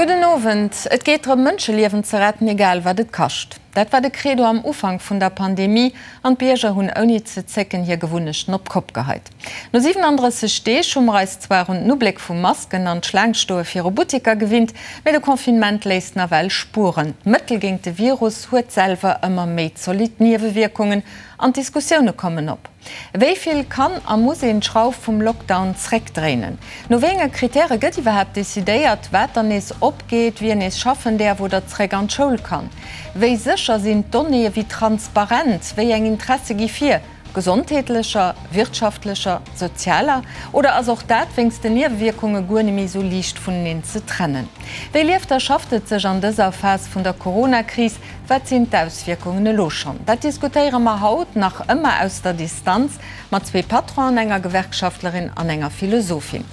Gudden Owend. Et geet drëm, Mënscheliewen ze retten, egal wat et kascht. Dat war de Credo am Ufank vun der Pandemie an d'Bierger hunn ouni ze zécken hir Gewunnechten op d'Kopp geheit. No 37 Deeg hu mer eis zwar un den Ubléck vu Masken an d'Schlaangstoe viru Butteker gewinnt, mee de Confinement léisst nawell Spueren. D'Mëttel géint de Virus huet selwer ëmmer méi zolidd Niewewierkungen an d'Diskussioune kommen op. Wéi vill kann a muss een d'Schrauf vum Lockdown zréckdréinen? No wéi enge Kritäre gëtt iwwerhaapt decidéiert, wat dann nees opgeet, wien nees schaffen däerf oder zréck an d'Schoul kann? Wéi sécher sinn d'Donnéeë, wéi transparent? Wéi eng Interesse gi vir, gesondheetlecher, wirtschaftlecher, sozialer? Oder ass och dat wéinst den Niewewierkunge guer neméi sou liicht vuneneen ze trennen? Wéi lieft a schafft et sech an dëser Phas vun der Corona-Kris? Wat sinn d'Auswierkungen elo schonn? Dat diskutéiere mer haut, nach ëmmer aus der Distanz, mat zwee Patronen, enger Gewerkschaftlerin an enger Philosophin.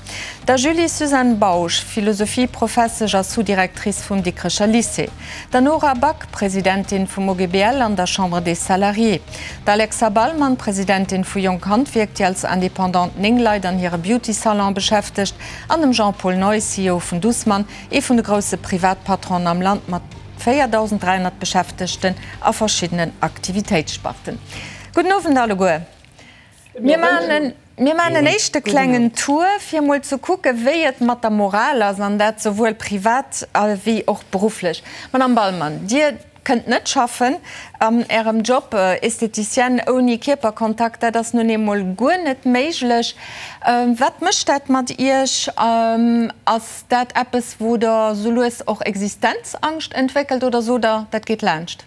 Der Julie-Suzanne Bausch, Philosophieprofessesch a Sous-Directrice vum Dikrecher Lycée, der Nora Back, Presidentin vum OGBL an der Chambre des Salariés, der Alexa Ballmann, Presidentin vu Jonk Handwierk, déi als Indépendante 9 Leit an hire Beauty-Salon beschäftegt, an dem Jean-Paul Neu, CEO vun Dussmann, ee vun de grousse Privatpatronen am Land mat 4.300 Beschäftegten a verschiddenen Aktivitéitssparten. Gudden Owend alleguer. Mir maachen mir maachen en éischte klengen Tour, fir emol ze kucken, wéi et mat der Moral ass, an dat souwuel privat wéi och berufflech. Madame Ballmann, Dir kënnt net schaffen an Ärem Job, Esthéticienne ouni Kierperkontakt, dat ass nun eemol guer net méiglech. Wat mécht dat mat Iech? Ass dat eppes, wou Der sou lues och Existenzangscht entwéckelt oder sot Der, dat geet laanscht?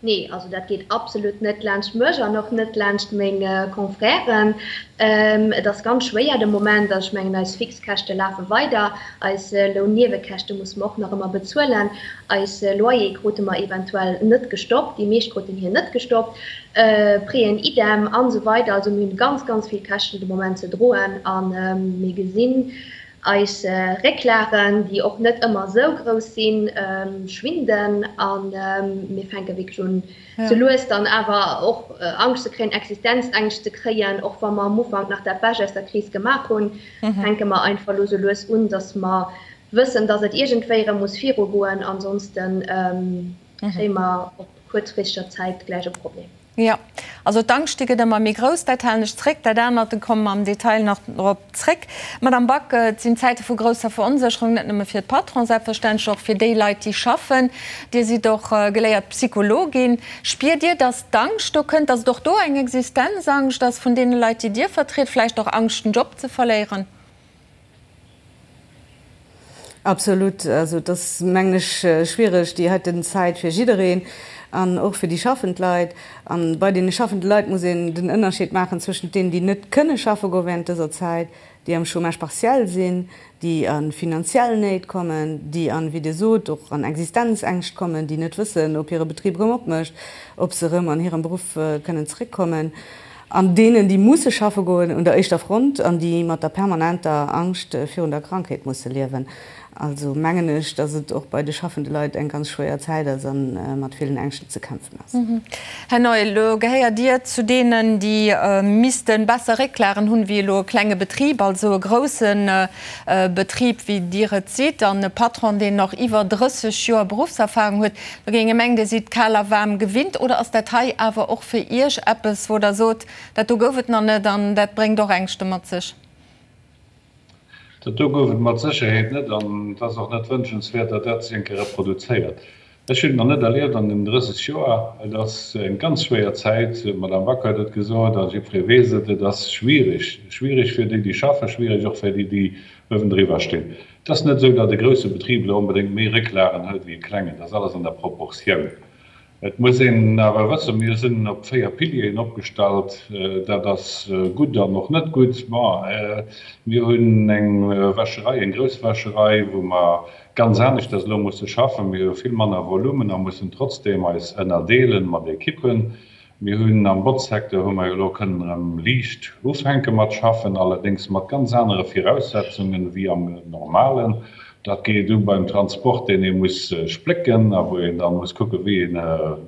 Nee, also dat geet absolut net laanscht mech an och net laanscht meng Confrèren. Et ass ganz schwéier de Moment. Also ech mengen, eis Fixkäschte lafe weider, eis Lounniewekäschte musse mer och nach ëmmer bezuelen, eis Loyer krute mer eventuell net gestoppt, déi meescht kruten hir net gestoppt, Prêten idem an esou weider. Also mir hunn ganz, ganz vill Käschten de Moment ze droen a mir gesinn eis Récklagen, déi och net ëmmer esou grouss sinn, schwinden a mir fänke wierklech un, sou lues dann awer och Angscht ze kréien, Existenzängscht ze kréien. Och wa mer am Ufank nach dat Bescht aus der Kris gemaach hunn, fänke mer einfach elo sou lues un, datt mer wëssen, datt et iergendwéi erëm muss virugoen, ansonsten kréie mer op kuerzfristeger Zäit gläich e Problem. Jo, also d'Angscht, déi gëtt ëmmer méi grouss. Dat halen ech zréck. Dat anert, do komme mer am Detail nach drop zréck. Madame Back, et sinn Zäite vu grousser Veronsécherung, net nëmme fir d'Patronen, selbstverständlech och fir déi Leit, déi schaffen. Dir sidd och geléiert Psychologin. Spiert Dir, datt d'Angscht do kënnt, datt et och do eng Existenzangscht ass vun deene Leit, déi Dir vertritt, vläicht och Angscht, den Job ze verléieren? Absolut. Also et ass, mengen ech, schwiereg déi heiten Zäit fir jiddereen an och fir déi schaffend Leit. A bei deene schaffende Leit muss een den Ënnerscheed maachen zwëschent deenen, déi net kënne schaffe goe während dëser Zäit, déi am Chômage partiel sinn, déi a finanziell Néit kommen, déi an, wéi Dir sot, och an Existenzängscht kommen, déi net wëssen, ob hire Betrib erëm opmécht, ob se erëm an hirem Beruff kënnen zeréckkommen. An deenen, déi musse schaffe goen un der éischter Front an déi mat der permanenter Angscht virun der Krankheet musse liewen. Also mengen ech, datt et och bei de schaffende Leit eng ganz schwéier Zäit ass a mat villen Ängschten ze kämpfen ass. Här Neu, elo gehéiert Dir zu deenen, déi misste besser Récklagen hunn, wéi elo e klenge Betrib, also e grousse Betrib, wéi Dir et sidd, an e Patron, deen och iwwer 30 Joer Beruffserfahrung huet. Do géing ee mengen, Dir sidd kal a waarm gewinnt. Oder ass dat hei awer och fir Iech eppes, wou Der sot, dat do gouf et nach net an dat bréngt och Ängschte mat sech? Dat do gouf et mat Sécherheet net an et ass och net wënschenswäert, datt dat sech eng Kéier reproduzéiert. Ech hunn et nach net erlieft an den 30 Joer. Et ass eng ganz schwéier Zäit, d'Madame Back huet et gesot a jiddweree weess et, et ass schwierig, schwierig fir déi, déi schaffen, schwierig och fir déi, déi uewendriwwer stinn. Et ass net esou, datt e grousse Betrib elo onbedéngt méi Récklagen huet wéi e klengen. Dat ass alles an der Proportioun. Et muss een awer wëssen, mir sinn op 4 Pilieren opgestallt. Dat ass gutt an och net gutt. Bon, mir hunn eng Wäscherei, eng grouss Wäscherei, wou mer ganz aneschters elo musse schaffen. Mir hu vill manner Volumen a mussen trotzdeem eis ënnerdeelen mat Ekippen. Mir hunn am Botzsecteur hu mer jo elo kënnen erëm liicht ufänke mat schaffen, allerdéngs mat ganz anere Viraussetzungen wéi am normalen. Dat geet u beim Transport, deen ee muss splécken a wou een da muss kucken, wéi een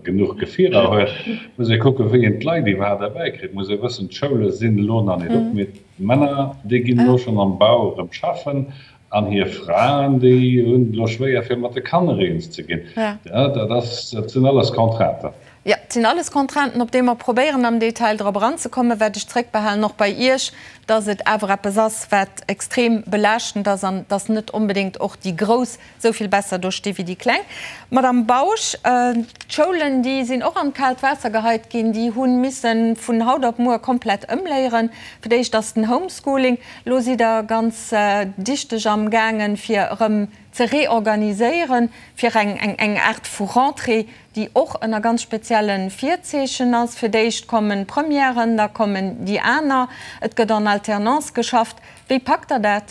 genuch Gefierer huet, muss ee kucken, wéi een d'Leit iwwerhaapt erbäikritt, muss ee wëssen, d'Schoule sinn elo nach net op, mee d'Männer, déi ginn elo schonn am Bau erëm schaffen. An hir Fraen, déi hunn et elo schwéier, fir mat de Kanner eens ze ginn. Dat ass, dat sinn alles Contrainten. Jo, et sinn alles Contrainten, op déi mer probéieren am Detail drop eranzekommen. Wat ech zréckbehalen, och bei Iech, dass et awer eppes ass, wat extrem belaaschtend ass an dass net onbedéngt och déi Grouss esou vill besser do sti wéi déi Kleng. Madamm Bausch, d'Schoulen, déi sinn och an d'kaalt Waasser geheit ginn. Déi hu misse vun haut op muer komplett ëmléieren. Fir d'éischt ass den Homeschooling. Elo sidd Der ganz dichteg amgaangen, fir erëm ze reorganiséieren, fir eng Aart vu Rentrée, déi och ënner ganz spezielle Virzeechen ass. Fir d'éischt kommen d'Premièren, da kommen déi aner. Et gëtt en Alternance geschafft. Wéi packt Der dat?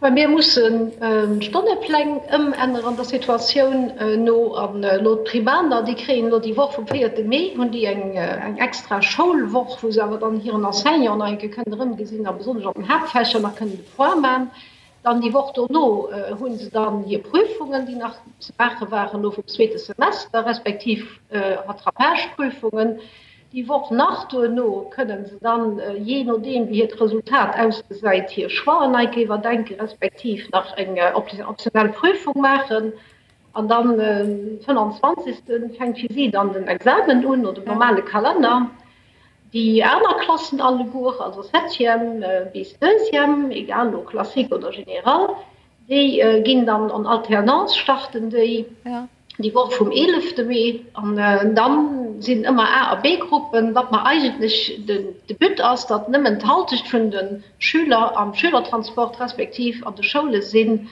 Well mir mussen d'Stonnepläng ëmänneren der Situatioun no. An elo d'Primaner, déi kréien elo déi Woch vum véierte Mee hunn déi eng extra Schoulwoch, wou se awer dann hiren Enseignant nach eng Kéier kënnen erëmgesinn a besonnesch an den Haaptfächer nach kënnen de Point man. Dann déi Woch dono hu se dann hir Prüfungen, déi nach ze maache waren elo vum zweete Semester, respektiv Rattrapageprüfungen. Déi Woch nach duerno kënnen se dann, jee nodeem wéi hiert Resultat ausgesäit, hir Choixen nei iwwerdenken, respektiv nach eng optionell Prüfung maachen. An dann den 25. fänkt fir si dann den Examen un, no dem normale Kalenner. Déi aner Klassen alleguer, also Septième bis Deuxième, egal elo Classique oder Général, déi ginn dann en Alternance, starten déi déi Woch vum eelefte Mee. An da sinn ëmmer A a B-Gruppen. Wat mer eigentlech de But ass, datt nëmmen d'Halschecht vun de Schüler am Schülertransport respektiv an de Schoule sinn,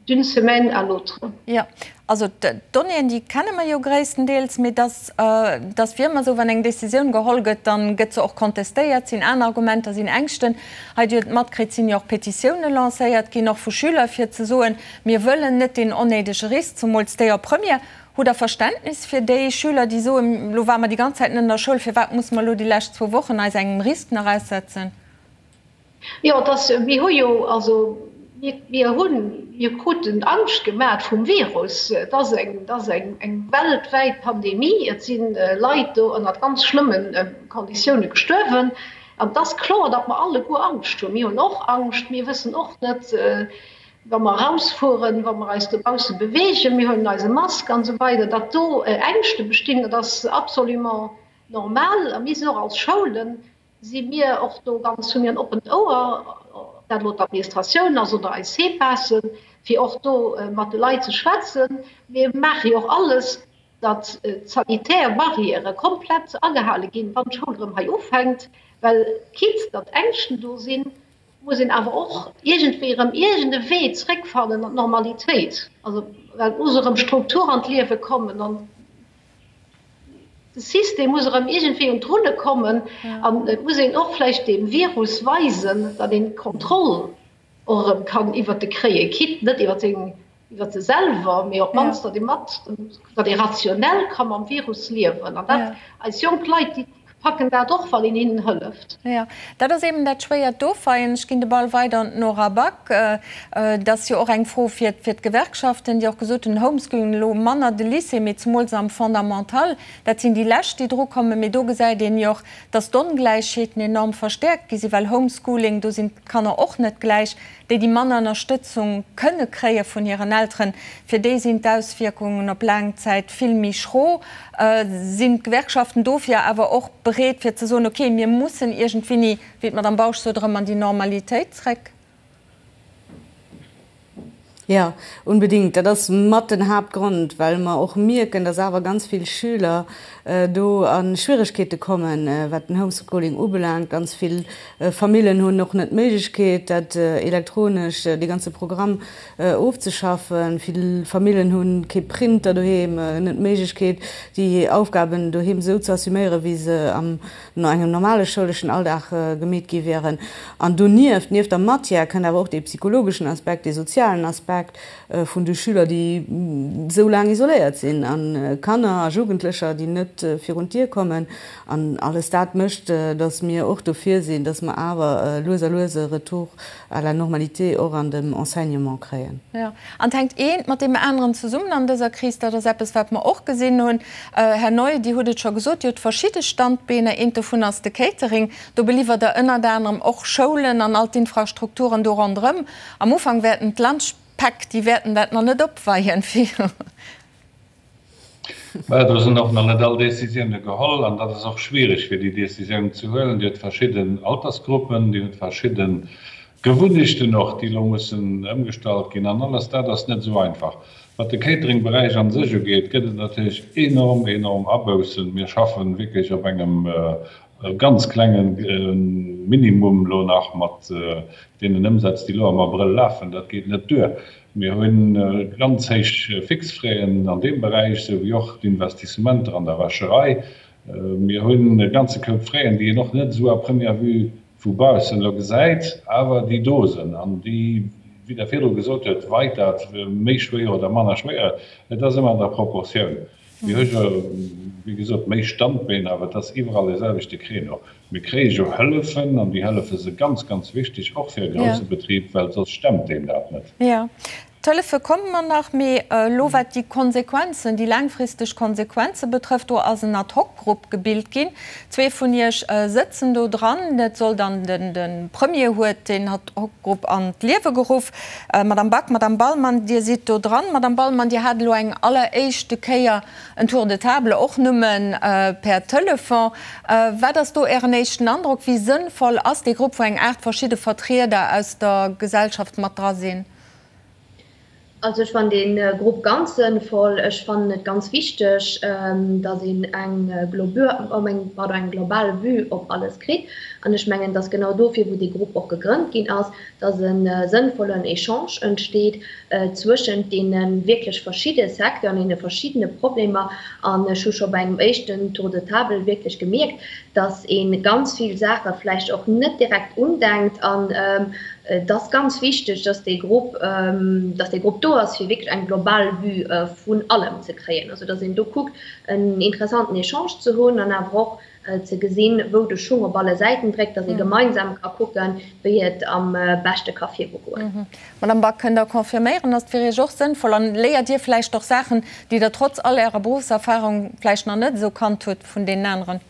D'une semaine à l'autre. Jo, also d'Donnéeën, déi kenne mer jo gréisstendeels, mee dass, dass wéi ëmmer esou, wann eng Décisioun geholl gëtt, da gëtt se och contestéiert, sinn aner Argumenter, sinn Ängschten. Hei, Dir hutt et matkritt, sinn jo och Petitioune lancéiert ginn, och vu Schüler, fir ze soen, mir wëllen net deen onnéidege Risk, zumools déi op Première. Hutt Der Verständnis fir déi Schüler, déi soen, elo ware mer déi ganz Zäit net an der Schoul, firwat musse mer elo déi lescht zwou Wochen eis engem Risk nach aussetzen? Jo, et ass, mir hu jo, also mir, mir hunn, mir kruten Angscht gemat vum Virus. Et ass eng, et ass eng, eng weltwäit Pandemie. Et si Leit do ënnert ganz schlëmme Konditioune gestuerwen. An et ass kloer, datt mer alleguer Angscht hunn. Mir hunn och Angscht. Mir wëssen och net, wa mer erausfueren, wa mer eis dobausse beweegen, mir huelen eise Mask an esou weider, datt do Ängschte bestinn, dat ass absolument normal. A mir sinn och als Schoulen, Si mir och do ganz, hu mir en oppent Ouer, ob dat elo d'Administratioun ass oder eis CPASen, fir och do mat de Leit ze schwätzen. Mir maache jo och alles, datt d'sanitär Barrièrë komplett agehale ginn, wann d'Schoul erëm hei ufänkt, well quitte datt Ängschten do sinn, muss een awer och iergendwéi erëm iergend e Wee zréckfannen an d'Normalitéit. Also well et muss erëm Struktur an d'Liewe kommen an De System muss erëm iergendwéi un d'Rulle kommen an et muss een och vläicht deem Virus weisen, datt een d'Kontroll och erëm kann iwwert e kréien, quitte net iwwer seng, iwwer se selwer, mee op d'mannst datt ee mat, datt ee rationell ka mam Virus liewen. An dat, eis jonk Leit, déi packen dat och, wann een hinnen hëlleft. Jo, dat ass eben dat schwéiert Dofeien. Ech ginn de Ball weider un d'Nora Back. Et ass jo och eng Fro fir d'Gewerkschaften, déi och gesot hunn, Homeschooling elo manner de Lycée, mee zemools am Fondamental, dat sinn déi lescht, déi drukommen. Mee do gesäit een jo och, datt d'Ongläichheeten enorm verstäerkt gi sinn, well Homeschooling, do sinn d'Kanner och net gläich. Déi, déi manner Ënnerstëtzung kënne kréie vun hiren Elteren, fir déi sinn d'Auswierkungen op laang Zäit vill méi schro. Sinn d'Gewerkschaften dofir awer och bereet, fir ze soen, okay, mir mussen iergendwéini, wéi d'Madame Bausch sot, erëm an déi Normalitéit zréck? Jo, unbedingt. Dat ass mat den Haaptgrond, well mer och mierken, dass awer ganz vill Schüler do a Schwieregkeete kommen, wat den Homeschooling ubelaangt. Ganz vill Famillen hunn och net d'Méiglechkeet, dat elektronesch, dee ganze Programm ofzeschaffen. Vill Famillen hu kee Printer doheem, net d'Méiglechkeet, déi Aufgaben doheem esou ze assuméieren, wéi se am no engem normale schouleschen Alldag gemeet gi wieren. An donieft, nieft der Matière, kënnt awer och dee psychologeschen Aspekt, dee sozialen Aspekt. Aspekt vun de Schüler, déi esou laang isoléiert sinn, a Kanner a Jugendlecher, déi net virun d'Dier kommen. An alles dat mécht, datt mir och dofir sinn, datt mer awer lues a lues e Retour à la normalité och an dem Enseignement kréien. Jo, an et hänkt eent mat deem aneren zesummen an dëser Kris. Dat ass eppes, wat mer och gesinn hunn. Här Neu, Dir hutt et scho gesot, Dir hutt verschidde Standbeener. Eent dovun ass de Catering. Do beliwwert Der ënnert anerem och Schoulen an all d'Infrastrukturen do ronderëm. Am Ufank wäerten d'Lunchpäck, déi wäerten dat nach net opweien. Mä do sinn och nach net all Décisioune geholl an dat ass och schwierig, fir déi Décisioun ze huelen. Dir hutt verschidden Altersgruppen, Dir hutt verschidde Gewunnechten och, déi elo mussen ëmgestallt ginn an alles dat ass net esou einfach. Wat de Catering-Beräich an sech ugeet, gëtt et natierlech enorm, enorm Aboussen. Mir schaffe wierklech op engem ganz klenge Minimum elo nach mat deenen Ëmsätz, déi elo am Abrëll lafen. Dat geet net duer. Mir hu ganz héich Fixfraisen an deem Beräich, esou wéi och d'Investissementer an der Wäscherei. Mir hunn e ganze Koup Fräen, déi een och net esou à première vue vu baussen elo gesäit, awer déi do sinn an déi, wéi Der virdru gesot huet, weit dat méi schwéier oder manner schwéier, et ass ëmmer an der Proportioun. Mir hu jo, wéi gesot, méi Standbeen, awer et ass iwwerall dee selwechte Créneau. Mir kréie jo Hëllefen an déi Hëllefe si ganz, ganz wichteg, och fir e grousse Betrib, well soss stemmt deen dat net. Jo, d'Hëllefe komme mer nach, mee elo wat déi Konsequenzen, déi laangfristeg Konsequenze betrëfft, do ass en Ad-hoc-Grupp gebilt ginn. Zwee vun Iech sëtzen do dran. Et soll dann de Premier huet deen Ad-hoc-Grupp an d'Liewe geruff. Madame Back, Madame Bahlmann, Dir sidd do dran. Madame Bahlmann, Dir hat elo eng alleréischte Kéier en Tour de table, och nëmme per Telefon. Wat ass do Ären éischten Androck? Wéi sënnvoll ass dee Grupp, wou eng 8 verschidde Vertrieder aus der Gesellschaft mat dra sinn? Also ech fannen dee Grupp ganz sënnvoll. Ech fannen et ganz wichteg, datt een eng pardon, eng global Vue op alles kritt. An ech mengen, datt genau dofir, wou dee Grupp och gegrënnt ginn ass, datt e sënnvollen Echange entsteet zwëschent deene wierklech verschidde Secteuren, deene verschiddene Problemer. An ech hu scho bei engem éischten Tour de table wierklech gemierkt, datt ee ganz vill Saache vläicht och net direkt undenkt. An et ass ganz wichteg, datt dee Grupp, datt dee Grupp do ass, fir wierklech eng global Vue vun allem ze kréien. Also datt een do kuckt, en interessanten Echange ze hunn an awer och ze gesinn, wou de Schung op alle Säiten dréckt, datt ee gemeinsam ka kucken, wéi et am beschte ka virugoen. Madame Back, kënnt Der confirméieren, ass et fir Iech och sënnvoll an léiert Dir vläicht och Saachen, déi Der trotz all Ärer Beruffserfahrung vläicht nach net esou kannt hutt vun deenen aneren?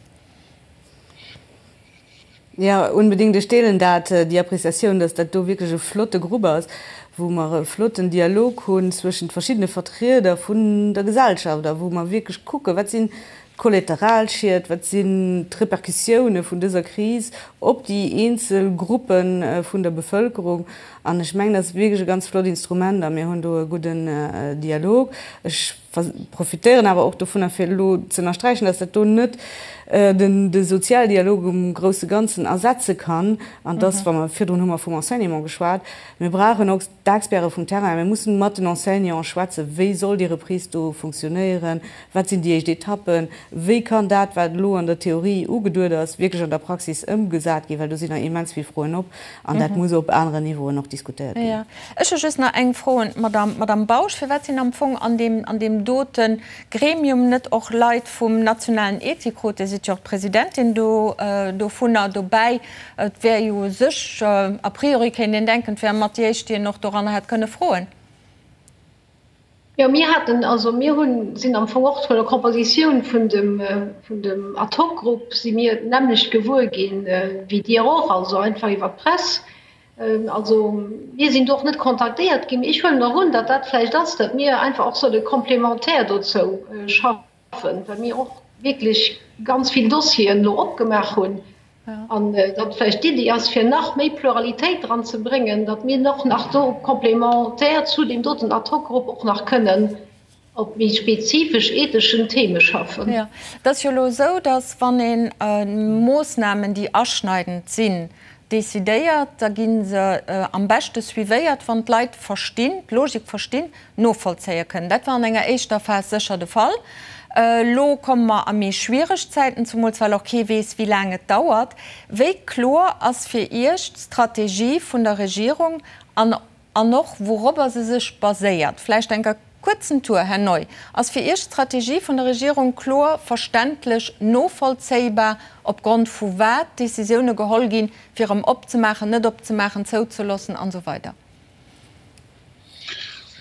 Jo, unbedingt. Ech deelen dat, déi Appréciatioun, dass dat do wierklech e flotte Grupp ass, wou mer e flotten Dialog hunn zwëschent verschiddene Vertrieder vun der Gesellschaft a wou mer wierklech kucken, wat sinn d'Kollateralschied, wat sinn d'Repercussioune vun dëser Kris op déi eenzel Gruppe vun der Bevëlkerung. An ech mengen, dat ass wierklech e ganz flott Instrument a mir hunn do e gudden Dialog. Ech profitéieren awer och dovunner, fir elo ze ënnersträichen, dass dat do net de Sozialdialog um grousse Ganzen ersetze kann an dass, wa mer, virdrun hu mer vum Enseignement geschwat, mir brauchen och d'Experte vum Terrain, mir mussen mat den Enseignanten schwätzen, wéi soll déi Reprise do funktionéieren, wat sinn déi éischt Etappen, wéi kann dat, wat elo an der Theorie ugeduet ass, wierklech an der Praxis ëmgesat ginn, well do sinn nach immens vill Froen op an dat muss op aneren Niveauen och diskutéiert ginn. Ech hu just nach eng Fro un d'Madame Bausch. Firwat sinn am Fong an deem, an deem dote Gremium net och Leit vum nationalen Ethikrot, Dir sidd jo och d'Presidentin do, dovunner, dobäi? Et wär jo u sech, a priori kéint een denken, et wäre mat déi éischt, déi een och doranner hätt kënne froen. Jo, mir haten, also mir hunn, sinn am Fong och vun der Kompositioun vun dem, vun dem Ad-hoc-Grupp si mir d'nämmlecht gewuer ginn wéi Dir och, also einfach iwwer d'Press. Also mir sinn do och net kontaktéiert ginn. Ech huelen och un, datt dat vläicht ass, datt mir einfach och solle complémentaire dozou schaffen, well mir och wierklech ganz vill Dossieren elo opgemaach hunn. An datt vläicht d'Iddi ass, fir nach méi Pluralitéit dran ze bréngen, datt mir och nach do complémentaire zu deem doten Ad-hoc-Grupp och nach kënnen op méi spezifesch etheschen Theme schaffen. Jo, et ass jo elo esou, datt wann ee Moossnamen, déi aschneidend sinn, decidéiert, da gi se am beschte suivéiert, wann d'Leit verstinn, d'Logik verstinn, novollzéie kënnen. Dat war an enger éischter Phas sécher de Fall. Elo komme mer a méi schwiereg Zäiten, zemools well och kee weess, wéi laang et dauert. Wéi kloer ass fir Iech d'Strategie vun der Regierung an. An och wourobber se sech baséiert. Vläicht enker kuerzen Tour, Här Neu. Ass fir Iech d'Strategie vun der Regierung kloer, verständlech, novollzéibar, opgrond vu wat Decisioune geholl ginn, fir erëm opzemaachen, net opzemaachen, zouzeloossen an esou weider?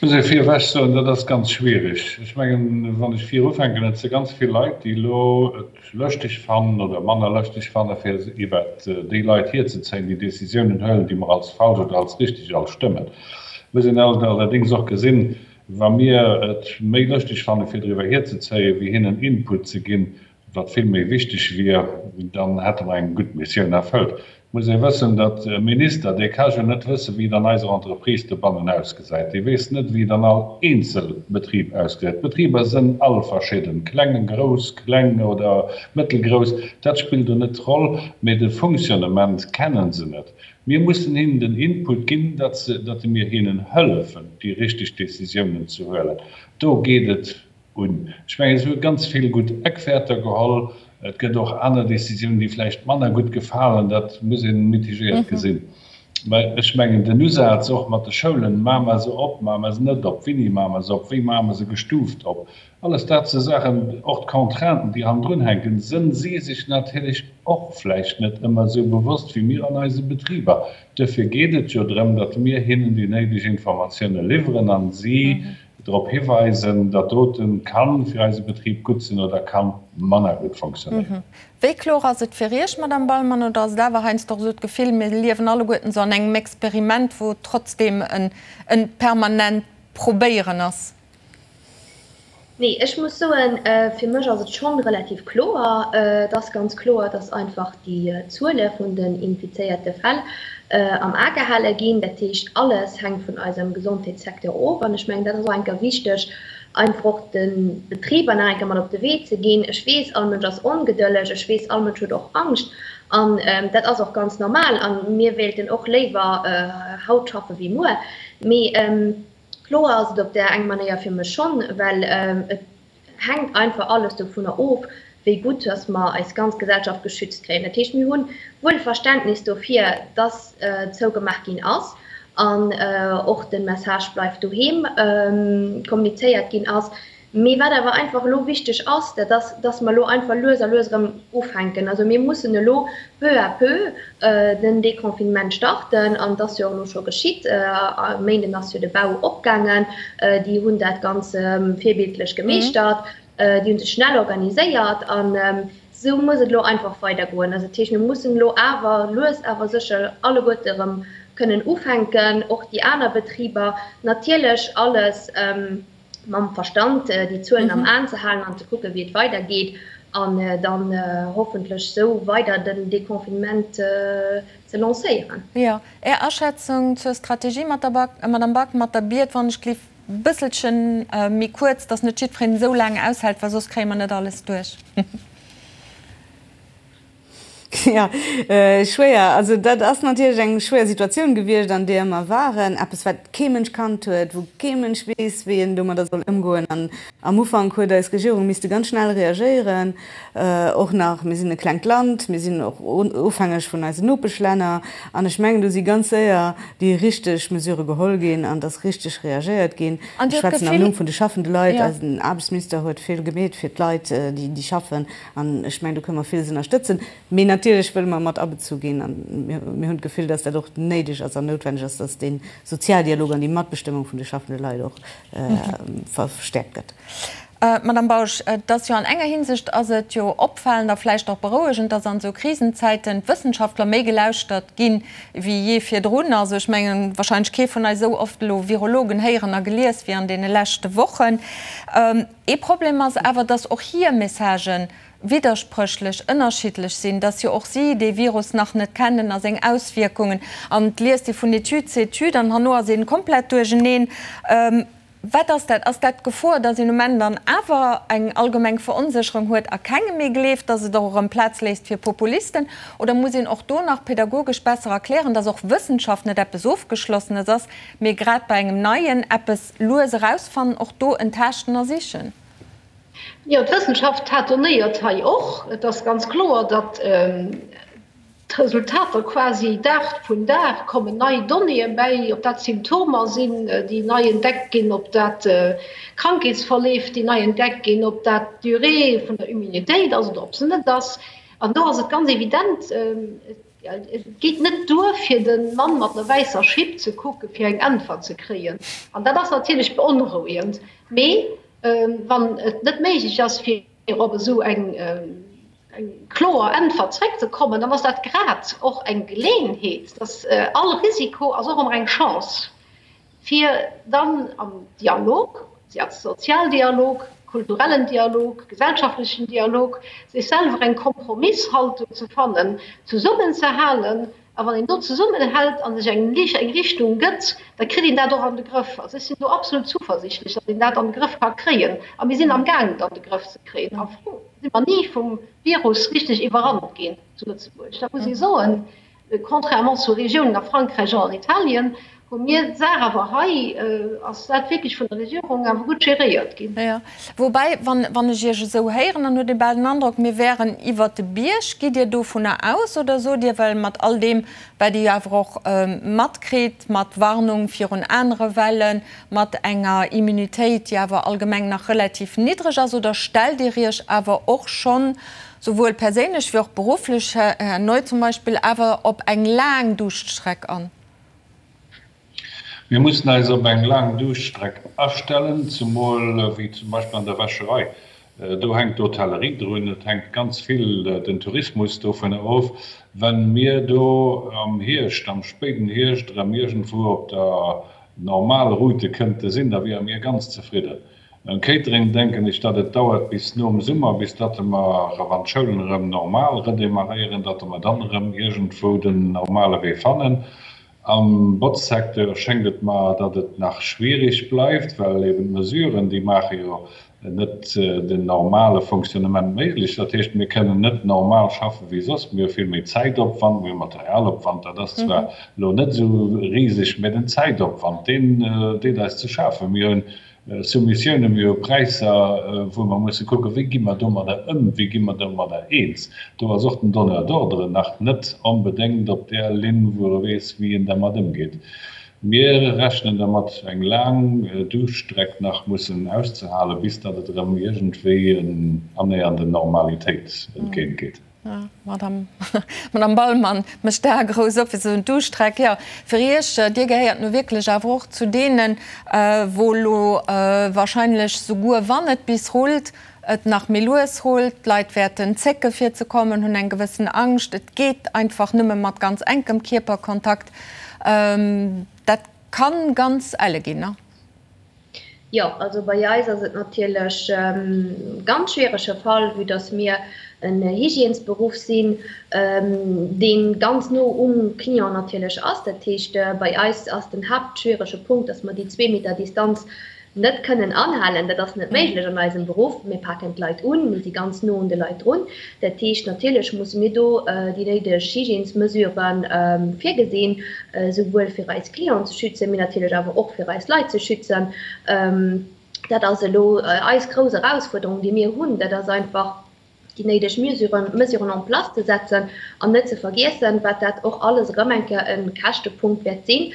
Ech muss ee virewech soen, dat ass ganz schwierig. Ech mengen, wann ech vir ufänken, et si ganz vill Leit, déi elo et lëschteg fannen oder manner lëschteg fanne fir iwwert déi Leit hierzezéien, déi Décisiounen huelen, déi mer als falsch oder als richtig all stëmmen. Et muss een allerdéngs och gesinn, wa mir et méi lëschteg fanne fir driwwer hierzezéien, wéi hinnen Input ze ginn, wat vill méi wichteg wier, dann hätte mer eng gutt Missioun erfëllt. Et muss ee wëssen, datt e Minister, dee ka jo net wëssen, wéi et an eiser Entreprise dobannen ausgesäit. Dee weess net, wéi et an all eenzel Betrib ausgesäit. D'Betriber sënn all verschidden, kleng, grouss, kleng oder mëttelgrouss, dat spillt do net d'Roll, mee de Fonctionnement kennen se net. Mir mussen hinnen den Input ginn, datt se, datt mir hinnen hëllefen, déi richteg Décisiounen ze huelen. Do geet et Un. Ech mengen, se hu ganz vill gutt Eckwäerter geholl. Et gëtt och aner Décisiounen, déi vläicht manner gutt gefalen. Dat muss ee mitigéiert gesinn. Mä ech mengen, den Usaz och mat de Schoulen, Maache mer se op, maache mer se net op, wéini maache mer se op, wéi maache mer se gestuuft op, alles dat si Saachen, och d'Contrainten, déi hannendrun hänken, sënn si sech natierlech och vläicht net ëmmer esou bewosst wéi mir an eise Betriber. Duerfir geet et jo drëm, datt mir hinnen déi néideg Informatioune liwweren a si drop hiweisen, dat doten kann fir eise Betrib gutt sinn oder kann manner gutt fonctionnéieren. Wéi kloer ass et fir Iech, Madame Ballmann, oder ass et awer heiansdo och esou d'Gefill, mir liewen alleguerten esou an engem Experiment, wou et trotzdem en permanent Probéieren ass? Nee, ech muss soen, fir mech ass et schonn relativ kloer. Et ass ganz kloer, dass einfach déi Zuele vun den infizéierte Fäll am A gehale ginn. Dat heescht, alles hänkt vun eisem Gesondheetssecteur of. An ech mengen, dat ass och eng Kéier wichteg, einfach och de Betriber nach eng Kéier mat op de Wee ze ginn. Ech weess, all Mënsch ass ongedëlleg. Ech weess, all Mënsch huet och Angscht. An dat ass och ganz normal. A mir wéilten och léiwer haut schaffe wéi muer. Mee kloer ass et op där eng Manéier fir mech schonn, well et hänkt einfach alles dovunner of, wéi gutt dass mer eis ganz Gesellschaft geschützt kréien. Dat heescht, mir hu wuel Verständnis dofir, dass zougemaach ginn ass an och de Message Bleift doheem kommunizéiert ginn ass. Mee wat awer einfach elo wichteg ass, dat ass, dass mer elo einfach lues a lues erëm ufänken. Also mir mussen elo peu à peu den Déconfinement starten an et ass jo och elo scho geschitt. E Méinden ass jo de Bau opgaangen. Déi hunn dat ganz virbildlech gemeeschtert. Déi hu sech schnell organiséiert an esou muss et elo einfach weidergoen. Also dat heescht, mir mussen elo awer lues awer sécher alleguerte erëm kënnen ufänken, och déi aner Betriber. Natierlech alles mam Verstand déi Zuelen am Aen ze halen an ze kucken, wéi et weidergeet an dann hoffentlech esou weider den Deconfinement ze lancéieren. Jo, Är Aschätzung zur Strategie, Madame Back, mat der Biet, wann ech gelift bësselchen méi kuerz, dass net jiddwereen esou laang aushält, well soss kréie mer net alles duerch. Jo, schwéier. Also dat ass natierlech eng schwéier Situatioun gewiescht, an deeër mer waren. Eppes, wat kee Mënsch kannt huet, wou kee Mënsch weess, wéi en domadder soll ëmgoen. An am Ufank huet eis Regierung misste ganz schnell reagéieren. Och nach, mir sinn e klengt Land, mir sinn och ofhängeg vun eisen Nopeschlänner. An ech mengen, do si ganz séier déi richteg Mesurë geholl ginn an et ass richteg reagéiert ginn. Ech schwätzen am Numm vun de schaffende Leit. Eisen Aarbechtsminister huet vill gemeet fir d'Leit, déi schaffen. An ech mengen, do kënne mer villes ënnerstëtzen. Mee natierlech wëlle mer mat abezu ginn. A mir hunn d'Gefill, dass dat och néideg ass an noutwenneg ass, dass dee Sozialdialog an déi Matbestëmmung vun de schaffende Leit och verstäerkt gëtt. Madame Bausch, et ass jo an enger Hinsicht ass et jo opfalend a vläicht och berouegend, dass an esou Krisenzäiten d'Wëssenschaftler méi gelauschtert ginn, wéi jee virdrun. Also ech mengen, wahrscheinlech kee vun eis esou oft elo Virologen héieren a gelies wéi an deene leschte Wochen. Ee Problem ass awer, dass och hir Messagë widderspréchlech, ënnerschiddlech sinn, dass jo och si dee Virus nach net kennen a seng Auswierkungen. An et liest ee vun Etüd zu Etüd an herno ass ee komplett duercheneen. Wat ass dat? Ass dat d'Gefor, dass een um Enn dann awer eng allgemeng Veronsécherung huet a kengem méi gleeft, dass et och erëm Plaz léisst fir Populisten? Oder muss een och do nach pedagogesch besser erklären, dass och Wëssenschaft net eppes Ofgeschlossenes ass, mee grad bei engem Neien eppes lues erausfannen, och do en Taaschten a Sichen. Jo, d'Wëssenschaft tâtonnéiert hei och. Et ass ganz kloer, datt. d'Resultater quasi Dag vun Dag kommen nei Donnéeë bäi, ob dat Symptomer sinn, déi nei entdeckt ginn, ob dat Krankheetsverleef, déi nei entdeckt ginn, ob dat d'Durée vun der Immunitéit ass oder ob se net ass. An do ass et ganz evident, et geet net duer, fir de Mann mat der wäisser Schipp ze kucken, fir eng Äntwert ze kréien. An dat ass natierlech beonrouegend. Mee wann et net méiglech ass, fir op esou eng kloer Äntwert zréckzekommen, dann ass dat grad och eng Geleeënheet, dass all Risiko ass och ëmmer eng Chance, fir dann am Dialog, Sozialdialog, kulturellen Dialog, gesellschaftlechen Dialog, sech selwer eng Kompromisshaltung ze fannen, zesummenzehalen A wann een do zesummenhält a sech eng Richtung gëtt, da kritt een dat och an de Grëff. Also ech sinn do absolut zuversichtlech, datt een dat an de Grëff ka kréien. A mir sinn amgaangen, et an de Grëff ze kréien. Am Fong si mer ni vum Virus richteg iwwerrannt ginn zu Lëtzebuerg. Dat muss ee soen. Contrairement zu Regiounen a Frankräich an an Italien, hu mir d'Saach awer hei, ass dat wierklech vun der Regierung awer gutt geréiert ginn. Jo, woubäi, wann ech Iech esou héieren, dann huet ee bal den Androck, mir wären iwwert de Bierg. Gitt Dir dovunner aus oder sot Dir, well mat all deem, wat Dir jo awer och matkritt, mat Warnung virun anere Wellen, mat enger Immunitéit, déi awer allgemeng nach relativ niddreg ass, oder stellt Dir Iech awer och schonn, souwuel perséinlech wéi och berufflech, Här Neu zum Beispill, awer op eng laang Duuschtstreck an? Mir mussen eis op eng laang Duuschtstreck astellen, zemol wéi zum Beispill an der Wäscherei. Do hänkt d'Hotellerie drun, et hänkt ganz vill den Tourismus dovunner of. Wa mir do am Hierscht, am spéiden Hierscht erëm iergendwou op der Normalroute kënnte sinn, da wiere mir ganz zefridden. Beim Catering denken ech, datt et dauert bis nom Summer, bis datt mer, wann d'Schoulen erëm normal redémarréieren, datt mer dann erëm iergendwou den normale Wee fannen. Am Botzsecteur schéngt et mer, datt et nach schwierig bleift, well eben d'Mesuren, déi maache jo net den normale Fonctionnement méiglech. Dat heescht, mir kënnen net normal schaffe wéi soss. Mir hu vill méi Zäitopwand, mir hu Materialopwand, dat ass zwar elo net esou riseg, mä den Zäitopwand, deen deet eis ze schafen. Mir hunn Soumissiounen, mir hu Präisser, wou mer musse kucken, wéi gi mer domadder ëm, wéi gi mer domadder eens. Do ass och den Donneur d'ordre nach net onbedéngt op där Linn, wou e weess, wéi en dermat ëmgeet. Mir rechnen dermat, eng laang Duuschtstreck nach mussen auszehalen, bis datt et erëm iergendwéi annähernd der Normalitéit entgéintgeet. Madame Bahlmann mécht d'Ae grouss op, fir ze soen, D'Duuschtstreck, jo, fir Iech, Dir gehéiert nu wierklech awer och zu deenen, wou elo wahrscheinlech, souguer wann et bis rullt, et nach méi lues rullt. D'Leit wäerten zécke fir ze kommen, hunn eng gewëssen Angscht. Et geet einfach nëmme mat ganz enkem Kierperkontakt. Dat kann ganz elle ginn, ne? Jo, also bei eis ass et natierlech e ganz schwierege Fall, vue dass mir en Hygiènesberuff sinn, dee ganz no um Client natierlech ass. Dat heescht, bei eis ass den haaptschwierege Punkt, dass mer déi zwee Meter Distanz net kënnen anhalen. Dat ass net méiglech an eisem Beruff. Mir paken d'Leit un, mir si ganz no un de Leit drun. Dat heescht, natierlech musse mir do déi néideg Hygiènesmesurë virgesinn, souwuel fir eis Clienten ze schützen, mee natierlech awer och fir eis Leit ze schützen. Dat ass elo eis grouss Erausfuerderung, déi mir hunn. Dat ass einfach, déi néideg Mesuren en place ze setzen an net ze vergiessen, wat dat och alles erëm eng Kéier e Käschtepunkt wäert sinn.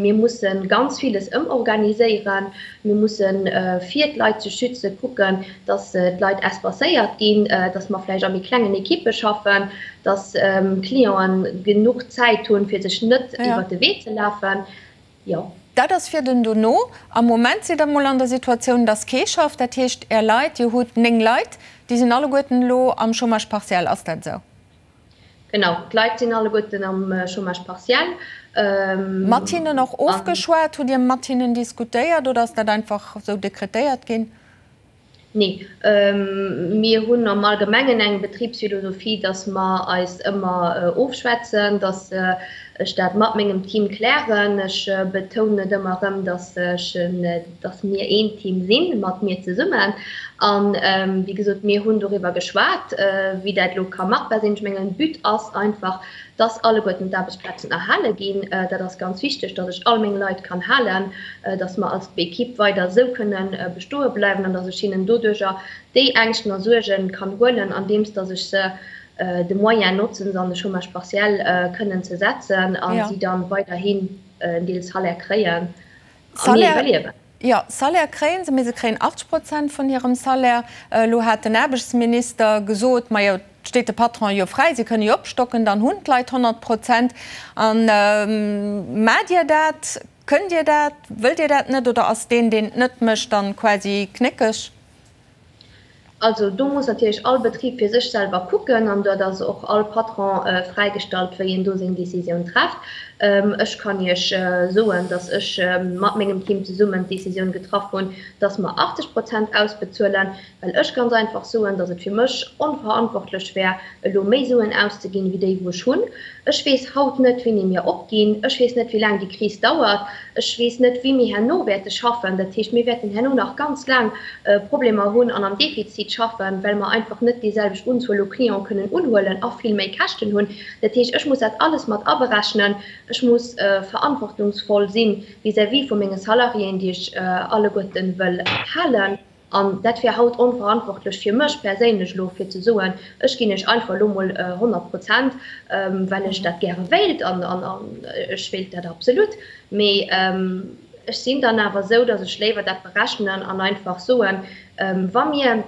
Mir musse ganz villes ëmorganiséieren. Mir mussen, fir d'Leit ze schützen, kucken, dass d'Leit espacéiert ginn, dass mer vläicht a méi klengen Ekippe schaffen, dass Clienten genuch Zäit hunn, fir sech net iwwert de Wee ze lafen. Jo. Dat ass fir den dono. Am Moment sidd Der mol an der Situatioun, dass kee schafft. Dat heescht, Är Leit, Dir hutt 9 Leit, déi sinn alleguerten elo am Chômage partiel. Ass dat esou? Genau, d'Leit sinn alleguerten am Chômage partiel. Mat hinnen och ofgeschwat? Hutt Dir mat hinnen diskutéiert oder ass dat einfach esou dekretéiert ginn? Nee, mir hunn am Allgemengen eng Betribsphilosophie, dass mer eis ëmmer ofschwätzen, dass ech dat mat mengem Team klären. Ech betounen et ëmmer erëm, dass ech, dass mir een Team sinn, mat mir zesummen. An, wéi gesot, mir hunn doriwwer geschwat, wéi dat elo ka machbar sinn. Ech mengen, But ass einfach, dass alleguerten d'Aarbechtsplazen erhale ginn. Dat ass ganz wichteg, dass ech all meng Leit kann halen, dass mer als Equipe weider esou kënne bestoe bleiwen an dass ech hinnen doduerjer déi Ängschten a Suerge kann huelen, andeems dass ech se. de Moyen notzen, se an de Chômage partiel kënnen ze setzen a si dann weiderhin en Deel Salaire kréien a mir iwwerliewen. Jo, Salaire kréie se, mee se kréien 80 Prozent vun hirem Salaire. Elo hat den Aarbechtsminister gesot, majo, et steet de Patronen jo fräi, si kënne jo opstocken, dann hunn d'Leit 100 Prozent. A maacht Dir dat? Kënnt Dir dat? Wëllt Dir dat net? Oder ass deen, deen et net mécht, dann quasi knéckeg? Also do muss natierlech all Betrib fir sech selwer kucken an dat ass och all Patron fräigestallt, wéi en do seng Décisioun trefft. Ech kann Iech soen, datt ech mat mengem Team zesummen d'Décisioun getraff hunn, datt mer 80 Prozent ausbezuelen, well ech ganz einfach soen, datt et fir mech onverantwortlech wär, elo méi Suen auszeginn, wéi déi wou ech hunn. Ech weess haut net, wéini mir opginn. Ech weess net, wéi laang déi Kris dauert. Ech weess net, wéi mir herno wäerte schaffen. Dat heescht, mir wäerten herno nach ganz laang Problemer hunn an am Defizit schaffen, well mer einfach net déi selwecht Unzuel u Clienten kënnen unhuelen a vill méi Käschten hunn. Dat heescht, ech muss dat alles mat aberechnen. Ech muss verantwortungsvoll si vis-à-vis vu menge Salariéen, déi ech alleguerten wëll halen. An dat wär haut onverantwortlech fir mech perséinlech elo, fir ze soen, ech ginn iech einfach elo mol 100 Prozent, well ech dat gäre wéilt. An ech wéilt dat absolut. Mee ech sinn dann awer esou, datt ech léiwer dat berechnen an einfach soen, wa mir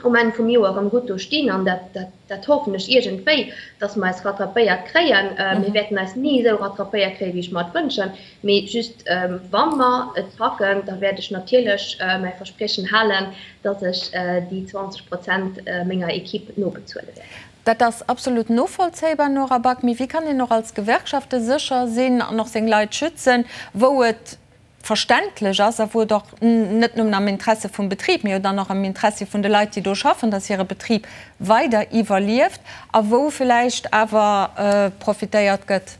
um Enn vum Joer erëm gutt do stinn, an dat, dat hoffen ech iergendwéi, datt mer eis rattrapéiert kréien, mir wäerten eis ni esou rattrapéiert kréien, wéi ech mer et wënschen, Mee just wa mer et packen, da wäert ech natierlech mäi Verspriechen halen, dass ech déi 20 Prozent menger Equipe nobezuele wäert. Dat ass absolut novollzéibar, Nora Back. Mee wéi kann een och als Gewerkschafte sécher sinn an och seng Leit schützen, wou et verständlech ass a wou et och net nëmmen am Interesse vum Betrib, mee jo dann och am Interessi vun de Leit, déi do schaffen, dass hire Betrib weider iwwerlieft a wou villäicht awer profitéiert gëtt?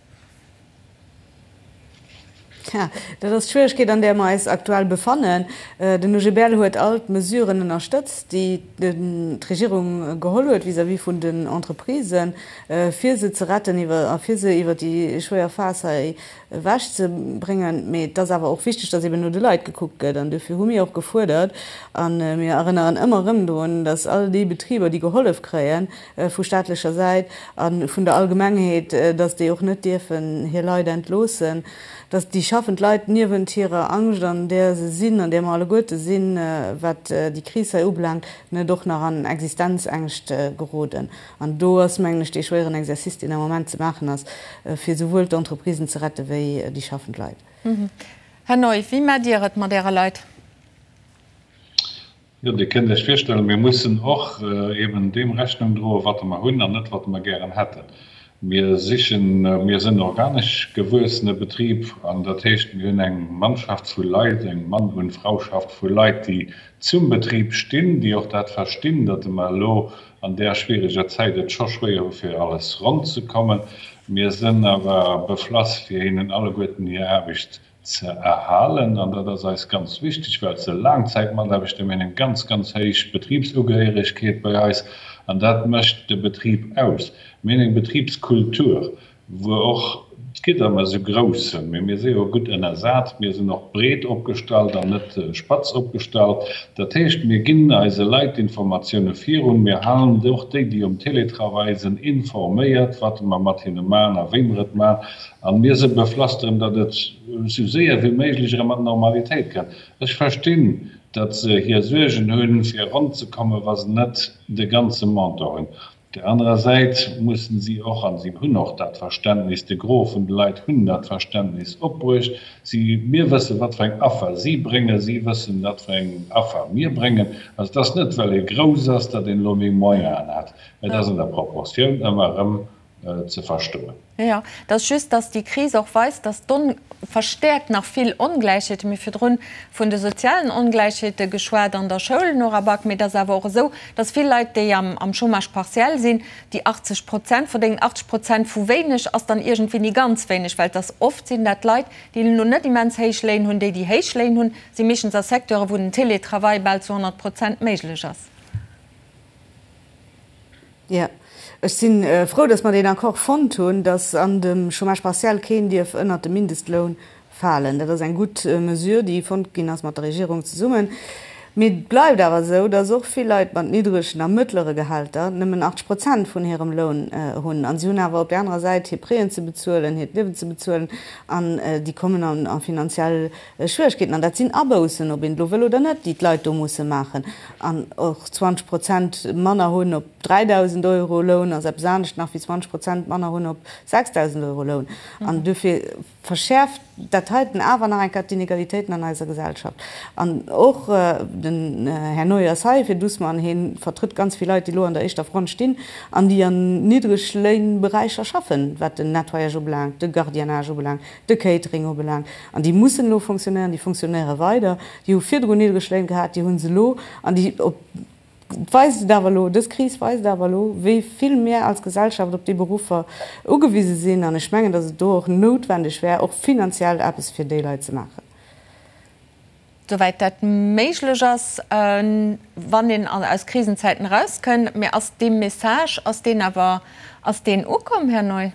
Tja, dat ass d'Schwieregkeet, an där mer eis aktuell befannen. Den OGBL huet all d'Mesuren ënnerstëtzt, déi d'Regierung geholl huet vis-à-vis vun den Entreprisen, fir se ze retten a fir se iwwer déi schwéier Phas hei ewechzebréngen. Mee et ass awer och wichteg, datt eben no de Leit gekuckt gëtt. An dofir hu mir och gefuerdert, a mir erënneren ëmmer erëm drun, datt all déi Betriber, déi gehollef kréien, vu staatlecher Säit a vun der Allgemengheet, datt déi och net dierfen hir Leit entloossen, datt déi schaffend Leit niewent hirer Angscht, an där se sinn, an där mer alleguerte sinn, wat déi Kris hei ubelaangt, net och nach an Existenzängscht geroden. An do ass, mengen ech, dee schwéieren Exercice, deen am Moment ze maachen ass, fir souwuel d'Entreprisen ze rette wéi déi schaffend Leit. Här Neu, wéi maacht Dir et mat Äre Leit? Jo, Dir kënnt Iech virstellen, mir mussen och eben deem Rechnung droen, wat mer hunn an net wat mer gären hätten. Mir sichen, mir sinn organesch gewuessene Betrib an dat heescht, mir hunn eng Mannschaft vu Leit, eng Mann und Frauschaft vu Leit, déi zum Betrib stinn, déi och dat verstinn, datt mer elo an där schwiereger Zäit et scho schwéier hu fir alles ronn ze kommen. Mir sinn awer beflass fir hinnen alleguerten hir Aarbecht ze erhalen, an dat ass eis ganz wichteg, well se Laangzäitmataarbechter, mir hunn eng ganz, ganz héich Betribsugehéieregkeet bei eis, an dat mécht de Betrib aus. Mir hunn eng Betribskultur, wou och d'Gidder mer esou grouss sinn, mee mir si jo gutt ënnersat, mir sinn och breet opgestallt an net spatz opgestallt. Dat heescht, mir ginn eise Leit d'Informatioune virun, mir halen och déi, déi um Télétravail sinn, informéiert, wat mer mat hinne maachen a wéi mer et maachen. An mir se beflasteren, datt et esou séier wéi méiglech erëm an d'Normalitéit kënnt. Ech verstinn, datt se hir Suergen hunn, fir ronn ze kommen, wa se net de ganze Montant hunn. Op där anerer Säit mussen si och, an si hunn och dat Verständnis, de Gros vun de Leit hunn dat Verständnis opbruecht, si, mir wëssen, wat fir eng Affer si bréngen, si wëssen, wat fir eng Affer mir bréngen. Also et ass net, well ee grouss ass, datt een elo méi Moyenen hat. Et ass an der Proportioun ëmmer erëm ze verstoen. Jo, et ass just, dass déi Kris och weist, dass d'On verstäerkt nach vill Ongläichheeten. Mir hu virdrun vun de sozialen Ongläichheete geschwat an der Schoul, Nora Back, mee et ass awer och esou, dass vill Leit, déi am am Chômage partiel sinn, déi 80 Prozent verdéngen. 80 Prozent vu wéineg ass dann iergendwéi ni ganz wéineg, well et ass oft sinn dat Leit, déi elo net immens héich Léin hunn. Déi, déi héich Léin hunn, si meeschtens a Secteuren, wou den Télétravail bal zu 100 Prozent méiglech ass. Jo, ech si frou, datt mer deen Accord fonnt hunn, datt an dem Chômage partiel keen dierf ënnert de Mindestloun falen. Dat ass eng gutt Mesure, déi fonnt ginn ass mat der Regierung zesummen. Mee et bleift awer esou, dass och vill Leit mat niddregen a mëttlere Gehälter nëmmen 80 Prozent vun hirem Loun hunn. A si hunn awer op där anerer Säit hir Prêten ze bezuelen, hiert Liewen ze bezuelen an déi kommen a finanziell Schwieregkeeten. An dat sinn Aboussen, ob een et elo wëll oder net, déi d'Leit do musse maachen. An och 20 Prozent manner hunn op 3.000 Euro Loun ass eppes anescht nach wéi 20 Prozent manner hunn op 6.000 Euro Loun. An dofir verschäerft dat heiten awer nach eng Kéier d'Inegalitéiten an eiser Gesellschaft. An och den Här Neu ass hei fir d'USMA an hie vertrëtt ganz vill Leit, déi elo an der éischter Front stinn an déi an Niddregléinberäicher schaffen, wat den Nettoyage ubelaangt, de Gardiennage ubelaangt, de Catering ubelaangt. An déi mussen elo fonctionnéieren, déi fonctionnéiere weider. Déi hu virdrun niddreg Léin gehat, déi hu se elo an déi op Et weist et awer elo, dës Kris weist awer elo, wéi vill mir als Gesellschaft op déi Beruffer ugewise sinn. An ech mengen, datt et do och noutwendeg wär, och finanziell eppes fir déi Leit ze maachen. Souwäit dat méiglech ass, wann een aus Krisenzäiten erauskënn. Mä ass dee Message, ass deen awer, ass deen ukomm, Här Neu?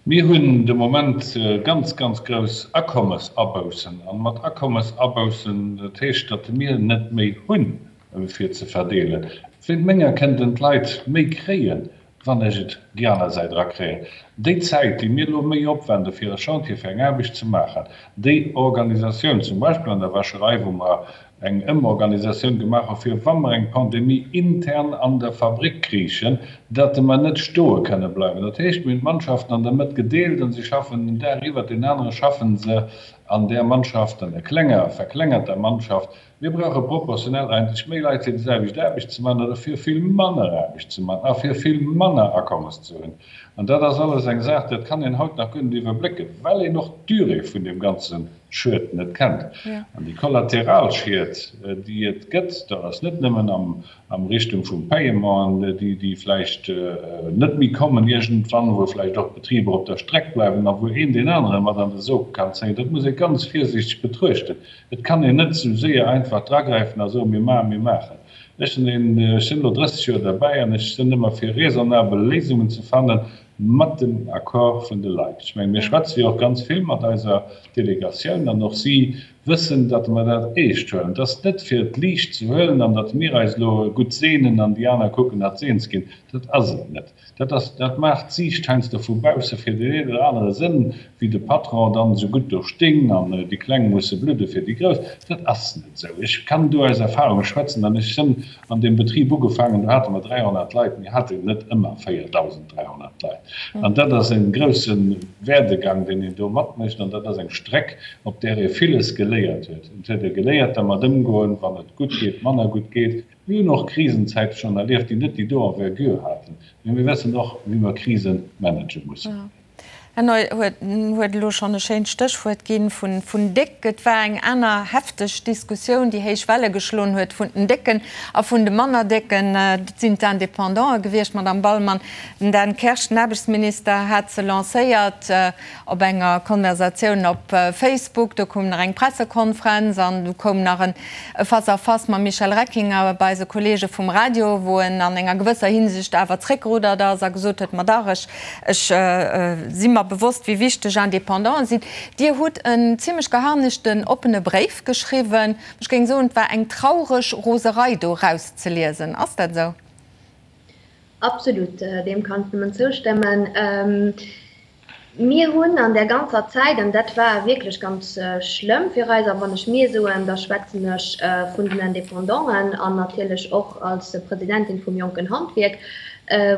Mir hunn de Moment ganz, ganz grouss Akommesaboussen. A mat Akommesaboussen, dat heescht, datt mir net méi hunn, fir ze verdeelen. Wéint menger kënnten d'Leit méi kréien, wann ech et déi aner Säit erakréien. Déi Zäit, déi mir elo méi opwende fir e Chantier, fir eng Aarbecht ze maachen, déi Organisatioun, zum Beispill an der Wäscherei, wou mer eng Ëmorganisatioun gemaach hu fir wa mer eng Pandemie intern an der Fabrick kriichen, datt mer net stoe kënne bleiwen. Dat heescht, mir hunn d'Mannschaften an der Mëtt gedeelt an si schaffen en Dag iwwert deen anere schaffen se an där Mannschaft, an der klenger, verklengerter Mannschaft. Mir brauche proportionell eigentlech méi Leit fir déi selwecht Aarbecht ze maachen oder fir vill manner Aarbecht ze maachen a fir vill manner Akommes ze hunn. An dat ass alles eng Saach, dat kann een haut nach guer net iwwerblécken, well een och d'Durée vun deem ganze Schued net kennt. An déi Kollateralschied, déi et gëtt, dat ass net nëmmen am Richtung vum Paiementen, déi vläicht net méi kommen iergendwann, wou vläicht och Betriber op der Streck bleiwen a wou een deen anere mat an de Sog kann zéien. Dat muss ee ganz virsiichteg betruechten. Et kann een net esou séier einfach dragräifen a soen, mir maachen, mir maachen. Ech sinn een, ech sinn elo 30 Joer derbäi an ech sinn ëmmer fir raisonnabel Léisungen ze fannen, mat dem Accord vun de Leit. Ech mengen, mir schwätze jo och ganz vill mat eiser Delegatioun an och si wëssen, datt mer dat eescht huelen. Et ass net fir et liicht ze huelen an datt mir eis elo gutt seenen an déi aner kucken, datt se eens ginn. Dat ass et net. Dat ass, dat maacht d'Siicht heiansdo vu bausse fir deen een oder anere Sënn, wéi de Patron dann esou gutt do sting an déi Kleng musse bludde fir déi Grouss. Dat ass net esou. Ech kann do aus Erfahrung schwätzen an ech sënn an deem Betrib ugefaangen, do hate mer 300 Leit, mir haten net ëmmer 4.300 Leit. An dat ass e grousse Werdegang, deen een do matmécht an dat ass eng Streck, op där ee villes geléiert huet. Et huet ee geléiert dermat ëmgoen, wann et gutt geet, manner gutt geet. Mir hunn och Krisenzäite schonn erlieft, déi net déi do Envergure haten, mee mir wëssen och, wéi mer Krise manage mussen. Här Neu huet elo schonn e schéint Stéchwuert ginn, vun déck. Et war eng aner hefteg Diskussioun, déi héich Welle geschloen huet, vun den Décken a vun de manner Décken. Dat sinn d'Independanten gewiescht, Madamm Ballmann. Den Dan Kersch, den Aarbechtsminister, hat se lancéiert. Op enger Konversatioun op Facebook, do koum nach eng Pressekonfrenz an du koum nach en Face à face mam Michel Reckinger bei eise Kollege vum Radio, wou en an enger gewësser Hinsicht awer zréckgeruddert ass a gesot huet, Ma dach, ech, ech si mer bewosst, wéi wichteg Indépendanten sinn. Dir hutt en zimlech geharnischten oppene Bréif geschriwwen. Ech géing soen, et war eng traureg Roserei do erauszeliesen. Ass dat esou? Absolut, deem kann ech nëmmen zoustëmmen. Mir hunn an där ganzer Zäit, an dat war wierklech ganz schlëmm fir eis, a wann ech mir soen, da schwätzen ech vun den Indépendanten an natierlech och als Presidentin vum Jonken Handwierk,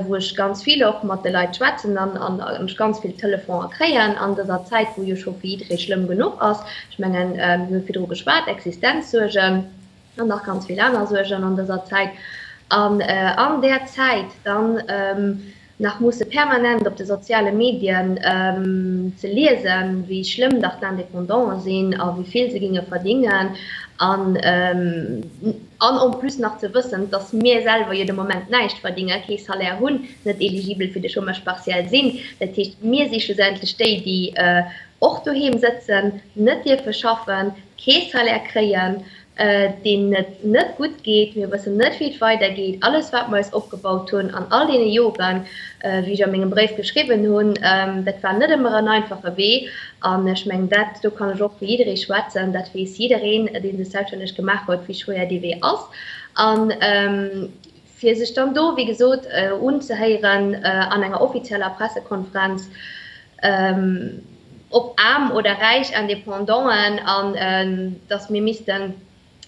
wou ech ganz vill och mat de Leit schwätzen an ech ganz vill Telefoner kréien an dëser Zäit, wou jo scho fir jidderee schlëmm genuch ass. Ech mengen, mir hu virdru geschwat, Existenzsuergen. An nach ganz vill aner Suergen an dëser Zäit. An an där Zäit dann nach musse permanent op de soziale Medien ze liesen, wéi schlëmm dach d'Indépendanten sinn a wéi vill se ginge verdingen. An an en plus nach ze wëssen, dass mir selwer jo de Moment näischt verdingen, kee Salaire hunn, net eligibel fir de Chômage partiel sinn. Dat heescht, mir si schlussendlech déi, déi och doheem sëtzen, net dierfe schaffen, kee Salaire kréien. deenen et net gutt geet. Mir wëssen net, wéi et weidergeet. Alles, wat mer eis opgebaut hunn an all deene Joren, wéi ech a mengem Bréif geschriwwen hunn, dat war net ëmmer en einfache Wee. An ech mengen, dat, do kann ech och fir jidderee schwätzen, dat weess jiddereen, dee sech selbststänneg gemaach huet, wéi schwéier dee Wee ass. An fir sech dann do, wéi gesot, unzehéieren an enger offizieller Pressekonferenz, ob aarm oder räich Independanten, an datt mir missten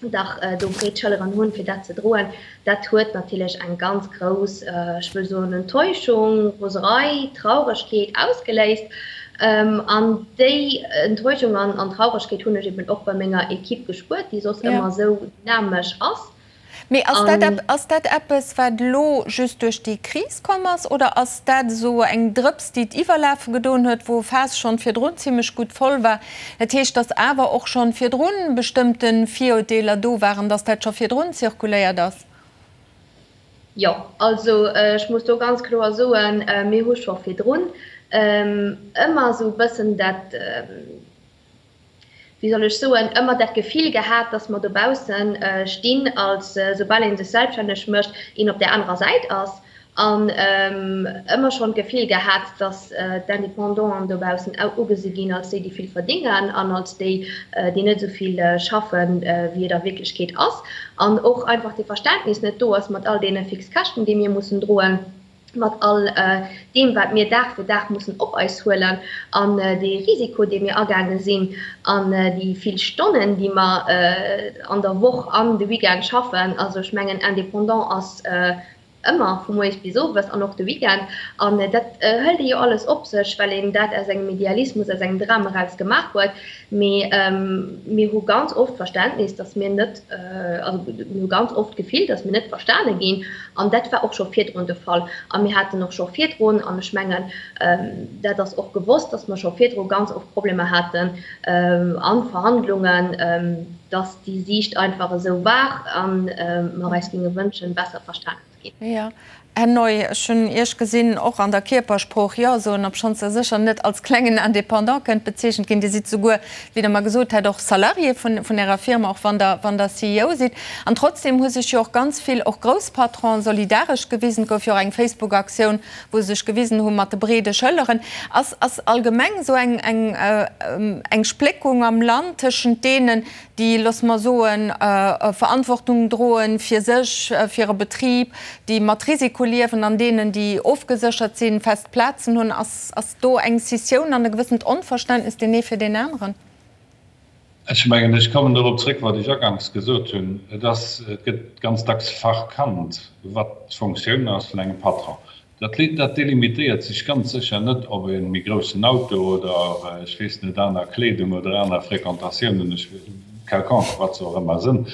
dach do breet Schëlleren hunn, fir dat ze droen, dat huet natierlech eng ganz grouss, ech wëll soen, Enttäuschung, Roserei, Trauregkeet ausgeléist. An déi Enttäuschung an Trauregkeet hunn ech eben och bei menger Equipe gespuert, déi soss ëmmer esou dynamesch ass. Mee ass dat, ass dat eppes, wat elo just duerch déi Kris komm ass, oder ass dat esou eng Drëps, déi d'Iwwerlafe gedoen huet, wou e Faass schonn virdrun zimlech gutt voll war? Dat heescht, datt awer och schonn virdrun bestëmmte Virurteeler do waren, datt dat scho virdrun zirkuléiert ass? Jo, also ech muss do ganz kloer soen, mir hu scho virdrun ëmmer esou e bëssen dat, wéi soll ech soen, ëmmer dat Gefill gehat, dass mer dobausse stinn, als soubal ee sech selbststänneg mécht, een op där anerer Säit ass. An ëmmer schonn d'Gefill gehat, dass d'Independanten dobaussen ugesi ginn als déi, déi vill verdéngen an als déi, déi net esou vill schaffen, wéi et a Wierklechkeet ass. An och einfach dee Verständnis net do ass mat all deene Fixkäschten, déi mir mussen droen. mat all deem, wat mir Dag fir Dag mussen op eis huelen an dee Risiko, dee mir agaange sinn an déi vill Stonnen, déi mer an der Woch an de Weekend schaffen. Also ech mengen, Indépendant ass ëmmer vu moies bis owes an och de Weekend. An dat hëlt ee jo alles op sech, well een dat aus engem Idealismus, aus engem Dram eraus gemaach huet. Mee mir hu ganz oft d'Verständnis, dass mir net, also mir hu ganz oft d'Gefill, dass mir net verstane ginn. An dat war och scho virdrun de Fall. A mir haten och scho virdrun, an ech mengen, dat ass och gewosst, dass mer scho virdru ganz oft Problemer haten a Verhandlungen, dass déi Siicht einfach esou war a mer eis géinge wënschen, besser verstanen ze ginn. Jo. Här Neu, ech hunn Iech gesinn, och an der Kierpersprooch Jo soen, obschonns Der sécher net als klengen Indépendant kënnt bezeechent ginn. Dir sidd souguer, wéi Der mer gesot hat, och Salarié vun Ärer Firma, och wann Der, wann Der CEO sidd. An trotzdem hu sech jo och ganz vill, och grouss Patronen, solidaresch gewisen. Et gouf jo och eng Facebook-Aktioun, wou se sech gewisen hu mat de breede Schëlleren. Ass, ass allgemeng esou eng, eng, eng Spléckung am Land tëschent deenen, déi, loosse mer soen, Verantwortung droen fir sech, fir e Betrib, déi mat Risiko liewen an deenen, déi ofgeséchert sinn, fest Plazen hunn, ass, ass do eng Scissioun an e gewëssent Onverständnis deen ee fir deen aneren? Ech mengen, ech kommen dorop zréck, wat ech aganks gesot hunn. Et ass, et gëtt ganz dacks verkannt, wat d'Fonctioun ass vun engem Patron. Dat dat delimitéiert sech ganz sécher net op e méi groussen Auto oder, ech weess net, aner Kleedung oder aner Fréquentatiounen, ech, quelconque, wat se och ëmmer sënn.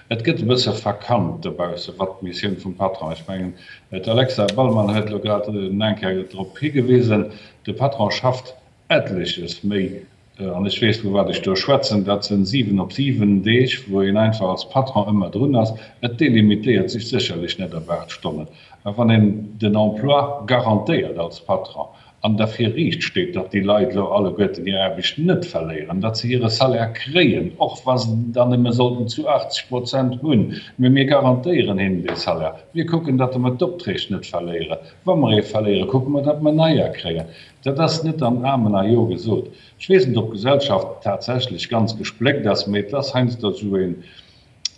Et gëtt e bësse verkannt dobausse wat d'Missioun vum Patron, ech mengen, d'Alexa Ballmann huet elo grad eng Kéier drop higewisen, de Patron schafft etleches méi An ech weess, vu wat ech do schwätzen, dat sinn 7 op 7 Deeg, wou een einfach als Patron ëmmer drun ass. Et delimitéiert sech sécherlech net op 8 Stonnen. Mä wann een den Emploi garantéiert als Patron an derfir riicht steet, datt déi Leit elo alleguerten hir Aarbecht net verléieren, datt se hire Salaire kréien, och wa se en dann nëmme sollten zu 80 Prozent hunn, mä mir garantéieren hinnen dee Salaire, mir kucken, datt mer d'Opträg net verléieren, wa mer ee verléieren, kucke mer, datt mer neier kréien. Dat ass net an Amen a Jo gesot. Ech weess net, ob d'Gesellschaft tatsächlech ganz gespléckt ass, mee et ass heiansdo esou een,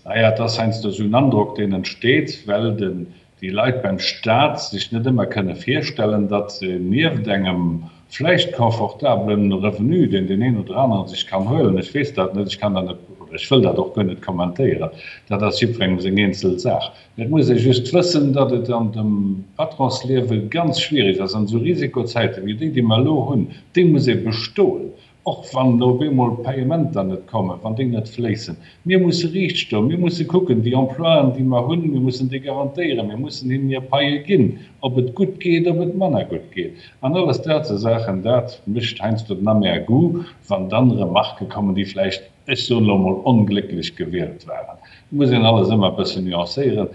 naja, et ass heiansdo esou en Androck, deen entsteet, well den, déi Leit beim Stat sech net ëmmer kënne virstellen, datt se nieft engem vläicht confortablen Revenu, deen deen een oder anere sech kann huelen, ech weess dat net, ech kann dat net oder ech wëll dat och guer net kommentéieren, dat ass jiddwerengem seng eenzel Saach, Et muss ee just wëssen, datt et an dem Patronsliewe ganz schwierig ass, an esou Risikozäite wéi déi, déi mer elo hunn, déi muss ee bestoen, och wann op eemol Payementer net kommen, wann déi net fléissen. Mir musse riicht stoen, mir musse kucken, déi Emploien, déi mer hunn, mir mussen déi garantéieren, mir mussen hinnen hir Paie ginn, ob et gutt geet, ob et manner gutt geet. An alles dat sou Saachen, dat mécht heiansdo den Amer Goût, wann dann Remarquë kommen, déi vläicht, ech soen elo emol, onglécklech gewielt waren. Et muss een alles ëmmer e bëssen nuancéieren.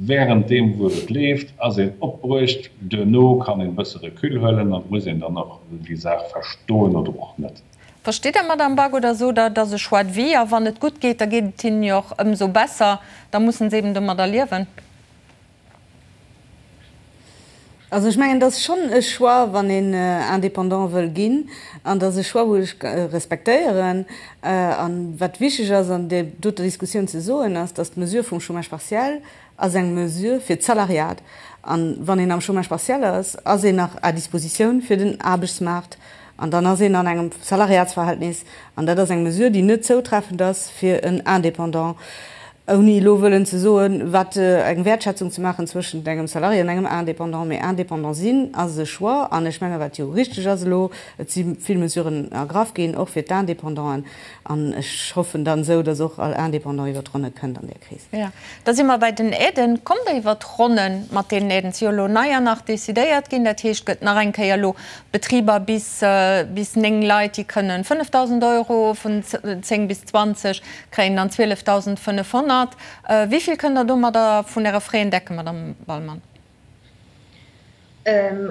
Während deem wou et leeft, ass een opbruecht, duerno kann een e bësse Recul huelen an et muss een dann och déi Saach verstoen oder och net. Verstitt Der, Madame Back, oder sot Der, et ass e Choix de vie a wann et gutt geet, da geet et hinnen jo och ëmsou besser, da mussen se eben domadder liewen? Also ech mengen, et ass schonn e Choix, wann een Indépendant wëll ginn. An et ass e Choix, wou ech respektéieren. A wat wichteg ass an där doter Diskussioun ze soen, ass, datt d'Mesure vum Chômage partiel ass eng Mesure fir d'Salariat. A wann een am Chômage partiel ass, ass een nach à dispositioun fir den Aarbechtsmaart. An dann ass een an engem Salariatsverhältnis. An dat ass eng Mesure, déi net zoutreffend ass fir en Indépendant, ouni elo wëllen ze soen, wat eng Wäertschätzung ze maachen zwëschent engem Salarié an engem Indépendant. Mee Indépendant sinn ass e Choix. An ech menge wat jo richteg ass elo, et si vill Mesuren ergraff ginn, och fir d'Indépendanten. An ech hoffen dann esou, datt och all Indépendant iwwer d'Ronne kënnt an där Kris. Jo, da si mer bei den Aiden. Kommt Der iwwer d'Ronne mat deenen Aiden? Et si jo elo neier nach decidéiert ginn. Dat heescht, et gëtt nach eng Kéier elo Betriber bis bis 9 Leit, déi kënnen 5.000 Euro, vun 10 bis 20 kréien dann 12.500. Wéi vill kënnt Der domadder vun Äre Frais decken, Madame Wallmann?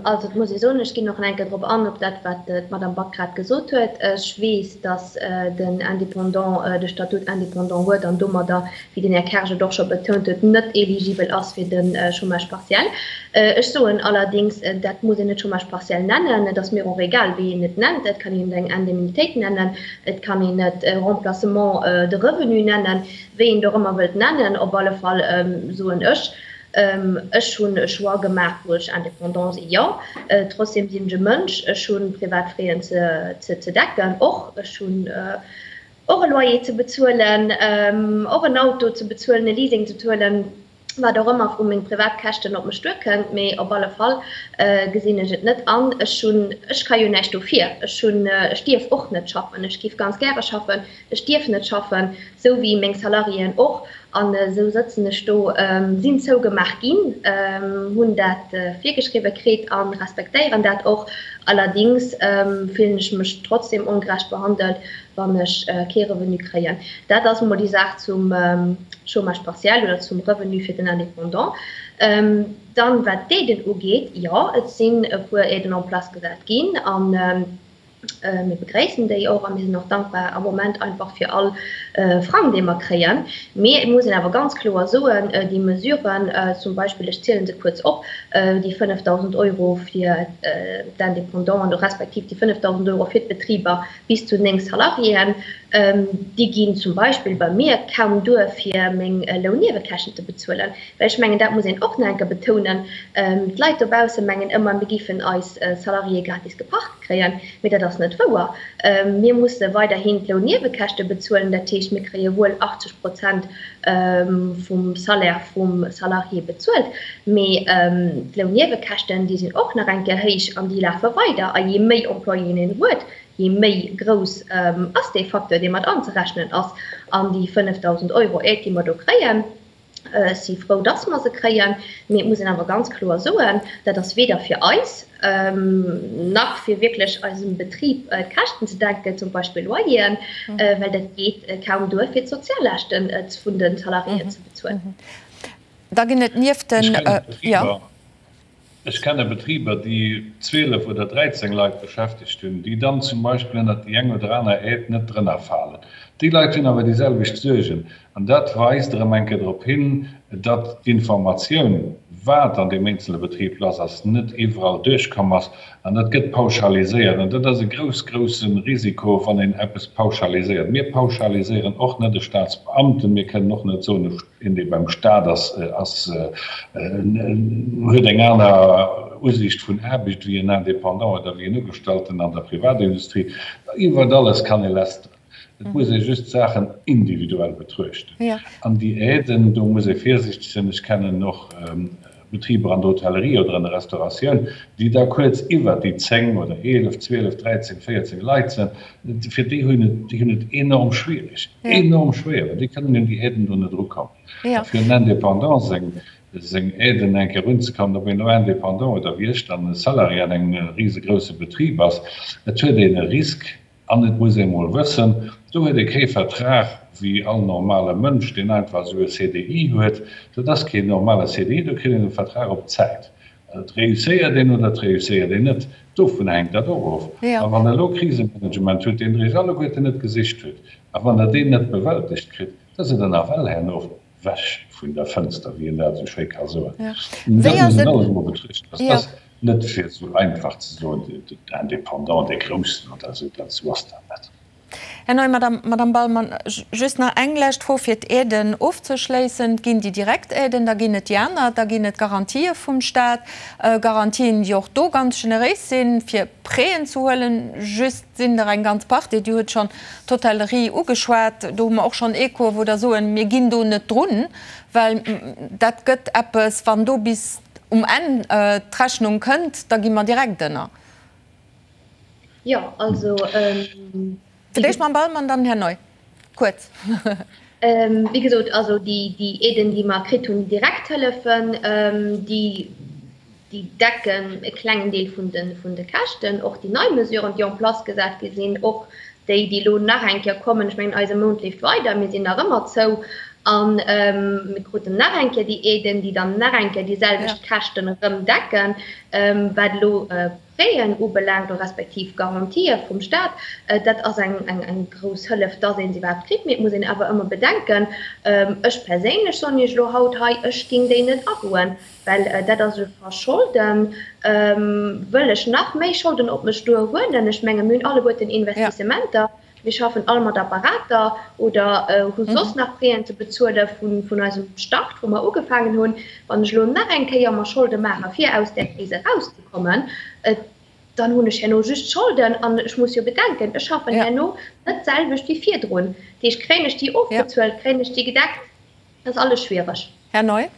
Also et muss ee soen, ech ginn och nach eng Kéier drop an, op dat wat d'Madame Back grad gesot huet. Ech weess, datt den Indépendant de Statut indépendant huet an domadder, wéi den Här Kersch et och scho betount huet, net éligibel ass fir de Chômage partiel. Ech soen allerdings, dat muss een net Chômage partiel nennen, et ass mir och egal, wéi een et nennt. Et kann een et eng Indemnitéit nennen, et kann een et Remplacement de revenu nennen, wéi een et och ëmmer wëllt nennen. Op alle Fall soen ech, Ech hunn e Choix gemaach, wou ech indépendant sinn, jo. Trotzdem sinn ech e Mënsch, ech hu privat Frais ze decken och. Ech hunn och e Loyer ze bezuelen, och en Auto ze bezuelen, e Leasing ze bezuelen, wat och ëmmer vu meng privat Käschten op mech duerkënnt. Mee op alle Fall gesinn ech et net an. Ech hunn, ech ka jo näischt dofir. Ech hunn, ech dierf och net schaffen. Ech géif ganz gäre schaffen, ech dierf net schaffen, sou wéi meng Salariéen och. An esou sëtzen ech do, sinn zougemaach ginn, hunn dat virgeschriwwe kritt a respektéieren dat och. Allerdings fillen ech mech trotzdem ongerecht behandelt, wann ech kee Revenu kréien. Dat ass emol déi Saach zum Chômage partiel oder zum Revenu fir den Indépendant. Dann, wat d'Aiden ugeet, jo, et sinn e puer Aiden en place gesat ginn. Mir begréissen déi och a mir sinn och dankbar am Moment einfach fir all Frang, dee mer kréien. Mee et muss een awer ganz kloer soen, déi Mesuren, zum Beispill, ech ziele se kuerz op, déi 5.000 Euro fir d'Indépendanten respektiv déi 5.000 Euro fir d'Betriber bis zu 9 Salariéen, déi ginn zum Beispill bei mir kaum duer, fir meng Lounniewekäschten ze bezuelen. Well ech mengen, dat muss een och nach eng Kéier betounen, d'Leit dobausse mengen ëmmer, mir géifen eis Salariéë gratis geparkt kréien, mee dat ass net wouer. Mir musse weiderhin d'Lounniewekäschte bezuelen, dat heescht, mir kréie wuel 80 Prozent vum Salaire vum Salarié bezuelt, mee d'Lounniewekäschten, déi sinn och nach eng Kéier héich an déi lafe weider. A jee méi Employéen een huet, jee méi grouss ass dee Facteur, dee mat anzerechnen ass. An déi 5.000 Euro Aide, déi mer do kréien, Ech si frou, dass mer se kréien, mee et muss een awer ganz kloer soen, dat ass weder fir eis nach fir wierklech eisem Betrib d'Käschten ze decken, zum Beispill Loyeren, well dat geet kaum duer, fir d'Soziallaaschte vun de Salariéen ze bezuelen. Da ginn et nieft den. Jo. Ech kenne Betriber, déi 12 oder 13 Leit beschäftegt hunn, déi dann zum Beispill ënnert déi eng oder aner Aide net drënner falen. Déi Leit hunn awer déi selwecht Suergen. An dat weist erëm eng Kéier drop hin, datt d'Informatioun, wat an deem eenzele Betrib lass ass, net iwwerall duerchkomm ass. An dat gëtt pauschaliséiert. An dat ass e grouss, grousse Risiko, wann een eppes pauschaliséiert. Mir pauschaliséieren och net e Staatsbeamten. Mir kënnen och net soen, e Een, dee beim Staat ass, ass, huet eng aner Usiicht vun Aarbecht wéi en Indépendant oder wéi en Ugestallten an der Privatindustrie. Iwwert alles kann ee lästeren. Et muss ee just d'Saachen individuell betruechten. An déi Aiden, do muss ee virsiichteg sinn. Ech kennen och Betriber an der Hotellerie oder an der Restauratioun, déi da kuerz iwwert déi 10 oder 11, 12, 13, 14 Leit sinn, fir déi hunn et, déi hunn et enorm schwierig, enorm schwéier, well déi kënnen un déi Aiden do net erukommen. A fir en Indépendant seng, seng Aiden eng Kéier erunzekommen, ob een elo Indépendant oder wéi ech dann e Salarié an engem risegrouse Betrib ass, et huet een e Risk, An et muss ee mol wëssen, do huet ee kee Vertrag wéi all normale Mënsch, deen einfach esou e CDI huet. Dat ass keen normale CDI, do kritt een e Vertrag op Zäit. Et réusséiert een oder et réusséiert een net. Dovun hänkt dat och of. A wann Der elo Krisemanagement hutt, deen Der Iech alleguerten net gesicht hutt, a wann Der deen net bewältegt kritt, da sidd Der nawell herno ewech vun der Fënster, wéi een dat esou schéi ka soen. Dat muss een alles emol betruechten. Dat ass net fir esou einfach ze soen, den Indépendant, dee Groussen oder esou, dat esou ass dat net. Här Neu, Madame Ballmann, just nach eng lescht Fro fir d'Aiden ofzeschléissen. Et ginn déi direkt Aiden, da ginn et déi aner, da ginn et Garantië vum Stat, Garantien, déi och do ganz generéis sinn, fir Prêten ze huelen. Just sinn der eng ganz Partie, Dir hutt schonn d'Hotellerie ugeschwat, do hu mer och schonn Echoe wou der soen, mir ginn do net drun, well dat gëtt eppes, wann do bis um Enn d'Rechnung kënnt, da gi mer direkt ënner. Jo, also. Fir d'éischt Mme Ballmann, dann Här Neu. Kuerz. Wéi gesot, also déi Aiden, déi mer kritt hunn, déi Direkthëllefen, déi decken e klengen Deel vun de Käschten. Och déi nei Mesuren, déi en place gesat gi sinn, och déi, déi elo nach eng Kéier kommen, ech mengen, eise Mount leeft weider, mir sinn nach ëmmer zou a mir kruten nach eng Kéier déi Aiden, déi dann nach eng Kéier déi selwecht Käschten erëm decken, wat elo Prêten ubelaangt, respektiv Garantië vum Staat, dat ass eng grouss Hëllef, dass ee se iwwerhaapt kritt. Mee et muss een awer ëmmer bedenken, ech perséinlech soen Iech elo haut hei, ech géing déi net agoen, well dat ass e Verscholden. Wëll ech nach méi Scholden op mech duer huelen? Ech menge mir hunn alleguerten Investissementer, mir schaffen all mat Apparater oder hu soss nach Prêten ze bezuele vun eisem Start, wou mer ugefaangen hunn. Wann ech elo nach eng Kéier mer Scholde maache fir aus där Kris erauszekommen, dann hunn ech herno just Scholden an ech muss jo bedenken, ech schaffen herno net d'selwecht wéi virdrun. Dat heescht, kréien ech déi ofbezuelt, kréien ech déi gedeckt? Dat ass alles schwiereg. Här Neu.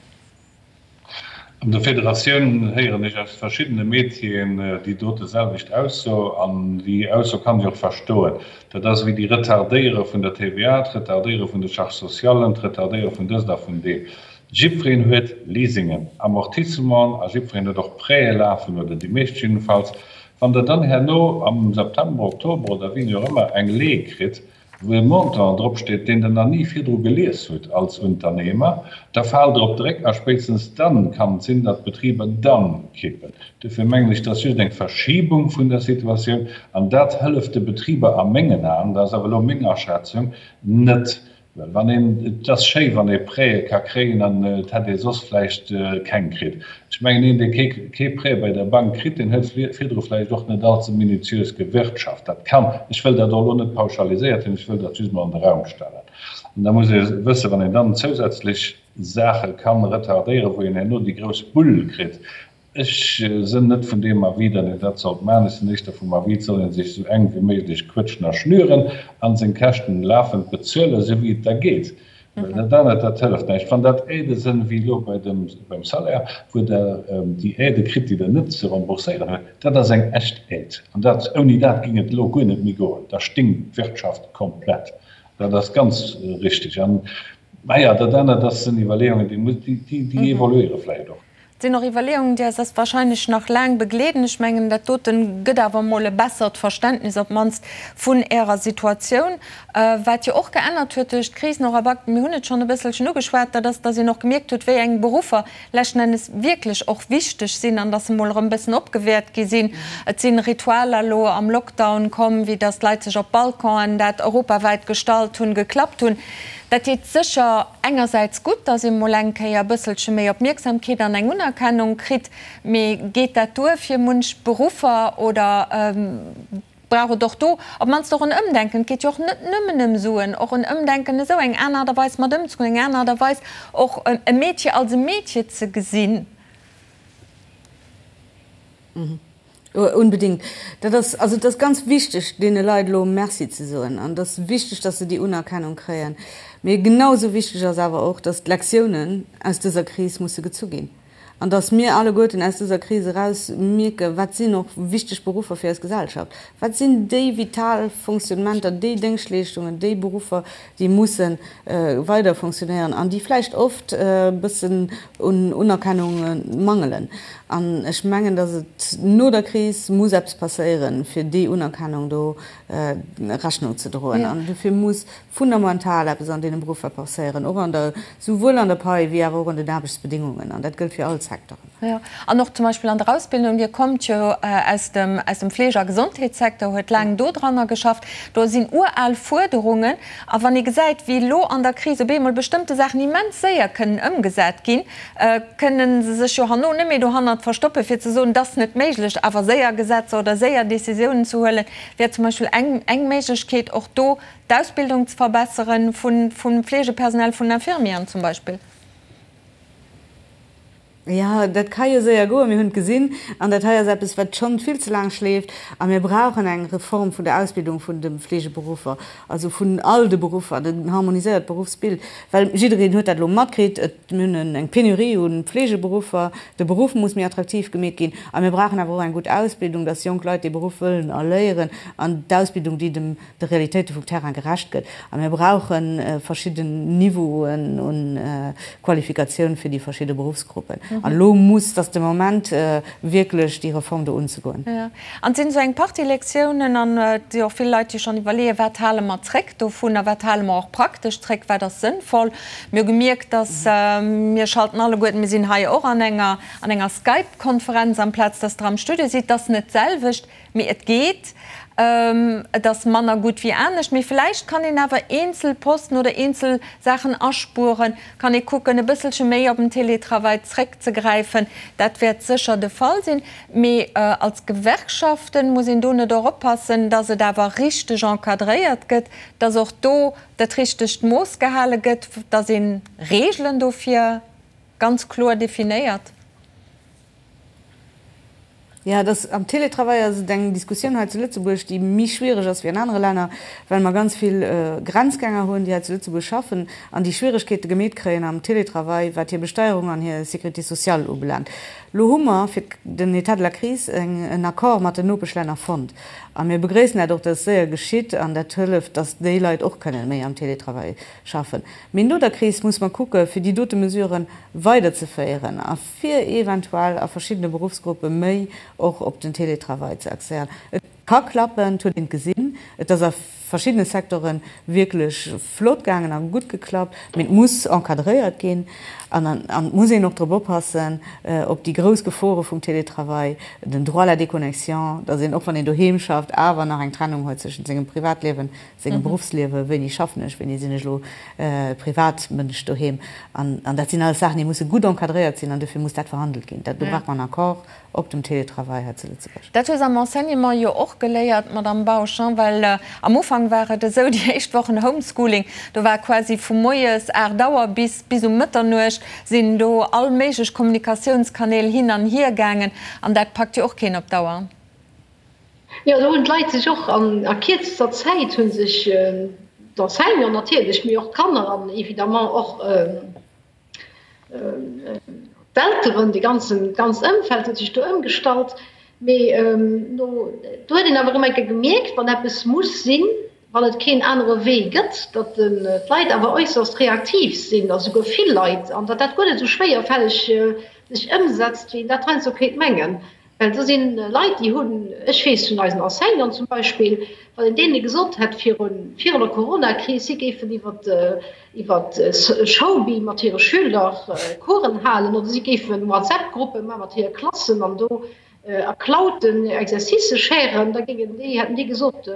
An der Federatioun héieren ech aus verschiddene Métieren déi dote selwecht Ausso, an déi Ausso kann ech och verstoen. Dat ass ewéi déi Retardéiere vun der TVA, d'Retardéiere vun de Charges socialen, d'Retardéiere vun dëst a vun deem. Jiddwereen huet Leasingen, Amortissementen a jiddwereen huet och Prêtë lafen, oder déi meescht jiddefalls. Wann Der dann herno am September, Oktober oder wéini och ëmmer eng Lee kritt, wou e Montant drop steet, deen Der nach ni virdru gelies hutt als Unternehmer, da faalt Der op de Réck a spéitstens dann kann et sinn, datt d'Betriber dann kippen. Dofir mengen ech, dat ass just eng Verschibung vun der Situatioun an dat hëlleft de Betriber a mengen Aen, dat ass awer elo meng Aschätzung, net. Well wann een, et ass schéi wann ee Prêtë ka kréien an et hätt ee soss vläicht keng kritt. Ech mengen, een dee kee Prêt bei der Bank kritt, deen huet virdru vläicht och net allze minutiös gewirtschaft. Dat kann, ech wëll dat och elo net pauschaliséiert hunn, ech wëll dat just mol an de Raum stellen. An da muss ee wëssen, wann een dann zousätzlech Saache kann retardéieren, wou een herno déi grouss Bull kritt, Ech sënn net vun deem Avis, datt een dat sollt maachen. Ech sinn éischter vum Avis, et soll ee sech esou enk wéi méiglech quëtschen a schnüren a seng Käschten lafend bezuelen, esou wéi et da geet. Well dat anert, dat hëlleft näischt. Wann dat Aidë sënn, wéi elo bei dem, beim Salaire, wou Der déi Aidë kritt, déi Der net ze rembourséieren hutt, dat ass eng echt Aide. An dat, ouni dat géing et elo guer net méi goen. Da stinkt d'Wirtschaft komplett. Dat ass ganz richtig. An, naja, dat anert, dat sinn Iwwerleeungen, déi, déi evoluéiere vläicht och. Et sinn och Iwwerleeungen, déi eis wahrscheinlech nach laang begleeden. Ech mengen, dat dote gëtt awer emol e bessert Verständnis op d'mannst vun Ärer Situatioun. Wat jo och geännert huet duerch d'Kris, Nora Back, mir hunn et schonn e bësselchen ugeschwat, dat ass, dass een och gemierkt huet, wéi eng Beruffer leschten Ennes wierklech och wichteg sinn an dass se emol erëm e bëssen opgewäert gi sinn. Et si Ritualer elo am Lockdown komm, wéi dass d'Leit sech op Balconen, dat europawäit gestallt hunn, geklappt hunn. Dat deet sécher engersäits gutt, dass ee mol eng Kéier e bësselche méi Opmierksamkeet an eng Unerkennung kritt, mee geet dat duer fir munch Beruffer oder brauch et och do op d'mannst och en Ëmdenken? Et geet jo och net nëmmen ëm Suen, och en Ëmdenken esou eng aner Aart a Weis mat ëmzegoen, eng aner Aart a Weis och e Meedche als e Meedche ze gesinn. Unbedingt. Dat ass, also et ass ganz wichteg, deene Leit elo Merci ze soen an et ass wichteg, dass se déi Unerkennung kréien. Mee genau esou wichteg ass awer och, dass d'Lektiounen aus dëser Kris musse gezu ginn an dass mir alleguerten aus dëser Kris eraus mierken, wat sinn och wichteg Beruffer fir eis Gesellschaft, wat sinn déi vital Fonctionnementer, déi Déngschtleeschtungen, déi Beruffer, déi musse weider fonctionnéieren an déi vläicht oft e bëssen un Unerkennung mangelen. An ech mengen, datt et no der Kris muss eppes passéieren, fir déi Unerkennung do Rechnung ze droen. An dofir muss fundamental eppes an deene Beruffer passéieren, och an der, souwuel an der Pai wéi awer och an den Aarbechtsbedingungen. An dat gëllt fir all. Secteuren. Jo, an och zum Beispill an der Ausbildung, Dir kommt jo aus dem, aus dem Fleege a Gesondheetssecteur, huet laang dodranner geschafft, do sinn ural Fuerderungen. A wann ee gesäit, wéi elo an der Kris op eemol bestëmmte Saachen immens séier kënnen ëmgesat ginn, kënne se sech jo herno net méi dohannert verstoppen, fir ze soen, et ass net méiglech. Awer séier Gesetzer oder séier Décisiounen ze huelen, wär zum Beispill eng, eng Méiglechkeet, och do d'Ausbildung ze verbesseren vun, vum Fleegepersonal, vun Infirmieren zum Beispill. Jo, dat ka jo séier goen, mir hunn et gesinn. An dat hei ass eppes, wat schonn vill ze laang schleeft. A mir brauchen eng Reform vun der Ausbildung vun de Fleegeberuffer, also vun all de Beruffer, en harmoniséiert Beruffsbild. Well jiddereen huet dat elo matkritt, et, mir hunn eng Penurie u Fleegeberuffer, de Beruff muss méi attraktiv gemeet ginn. A mir brauchen awer och eng gutt Ausbildung, dass jonk Leit dee Beruff wëllen erléieren an d'Ausbildung, déi dem de Realitéite vum Terrain gerecht gëtt. A mir brauche verschidden Niveauen u Qualifikatioun fir déi verschidde Beruffsgruppen. An elo muss, et ass de Moment, wierklech déi Reform do unzegoen. Jo, an et sinn esou eng Partie Lektiounen an et si och vill Leit, déi schonn iwwerleeën, wat hale mer zréck dovun a wat hale mer och praktesch zréck, wat ass sënnvoll. Mir hu gemierkt, dass mir schalten alleguerten, mir sinn hei och an enger, an enger Skype-Konferenz amplaz dass Der am Studio sidd, et ass net d'selwecht. Mee et geet. Et ass manner gutt wéi anescht. Mee vläicht kann een awer eenzel Posten oder eenzel Saachen aspueren, kann ee kucken, e bësselche méi op den Télétravail zréckzegräifen. Dat wäert sécher de Fall sinn. Mee als Gewerkschaften muss een do net och oppassen, dass et awer richteg encadréiert gëtt, dass och do dat richtegt Mooss gehale gëtt, dass ee Regeln dofir ganz kloer definéiert? Jo, et ass, am Télétravail ass et eng Diskussioun hei zu Lëtzebuerg, déi méi schwiereg ass wéi an anere Länner, well mer ganz vill Grenzgänger hunn, déi hei zu Lëtzebuerg schaffen an déi Schwieregkeete gemeet kréien am Télétravail, wat hir Besteierung an hir Sécurité sociale ubelaangt. Elo hu mer fir den État de la crise eng, en Accord mat den Nopeschlänner fonnt a mir begréissen dat och, dass et séier geschitt an dat hëlleft, dass déi Leit och kënnen méi am Télétravail schaffen. Mee no der Kris muss mer kucke fir déi dote Mesuren weiderzeféieren a fir eventuell a verschiddene Beruffsgruppe méi och op den Télétravail ze axéieren. Et ka klappen, et huet een et gesinn, et ass a verschiddene Secteure wierklech flott gaangen a gutt geklappt, mee et muss encadréiert ginn an et muss een och drop oppassen, op déi grouss Gefore vum Télétravail, den Droit à la déconnexion, datt een och wann een doheem schafft awer nach eng Trennung huet zwëschent sengem Privatliewen sengem Beruffsliewen, wéini schaffen ech, wéini sinn ech elo Privatmënsch doheem. An dat sinn alles Saachen, déi musse gutt encadréiert sinn an dofir muss dat verhandelt ginn. Do brauch mer en Accord op dem Télétravail hei zu Lëtzebuerg. Dat hu se am Enseignement jo och geléiert, Madamm Bausch, well am Ufank war et esou, déi éischt Wochen Homeschooling, do war quasi vu moies 8 Auer bis bis um Mëtternuecht sinn do all méiglech Kommunikatiounskanäl hin an hier gaangen an dat packt jo och keen op Dauer. Jo, do hunn d'Leit sech och an a kierzester Zäit hu sech d'Enseignanten natierlech, mee och d'Kanner an évidemment och d'Elteren, de ganzen, d'ganzt Ëmfeld huet sech do ëmgestallt. Mee no, do huet een awer erëm eng Kéier gemierkt, wann eppes muss sinn, wann et keen anere Wee gëtt, datt d'Leit awer äusserst reaktiv sinn, a souguer vill Leit, an datt dat guer net esou schwéierfälleg sech ëmsetzt, wéi een dat heiansdo kéint mengen. Well do si Leit, déi hunn, ech weess vun eisen Enseignanten zum Beispill, wann een deene gesot hätt virun, virun der Coronakris, si géifen iwwer, iwwer Showbee mat hire Schüler Coursen halen oder si géife WhatsApp-Gruppe maache mat hire Klassen an do a Clouden Exercicë sharen, da géingen déi, hätten déi gesot,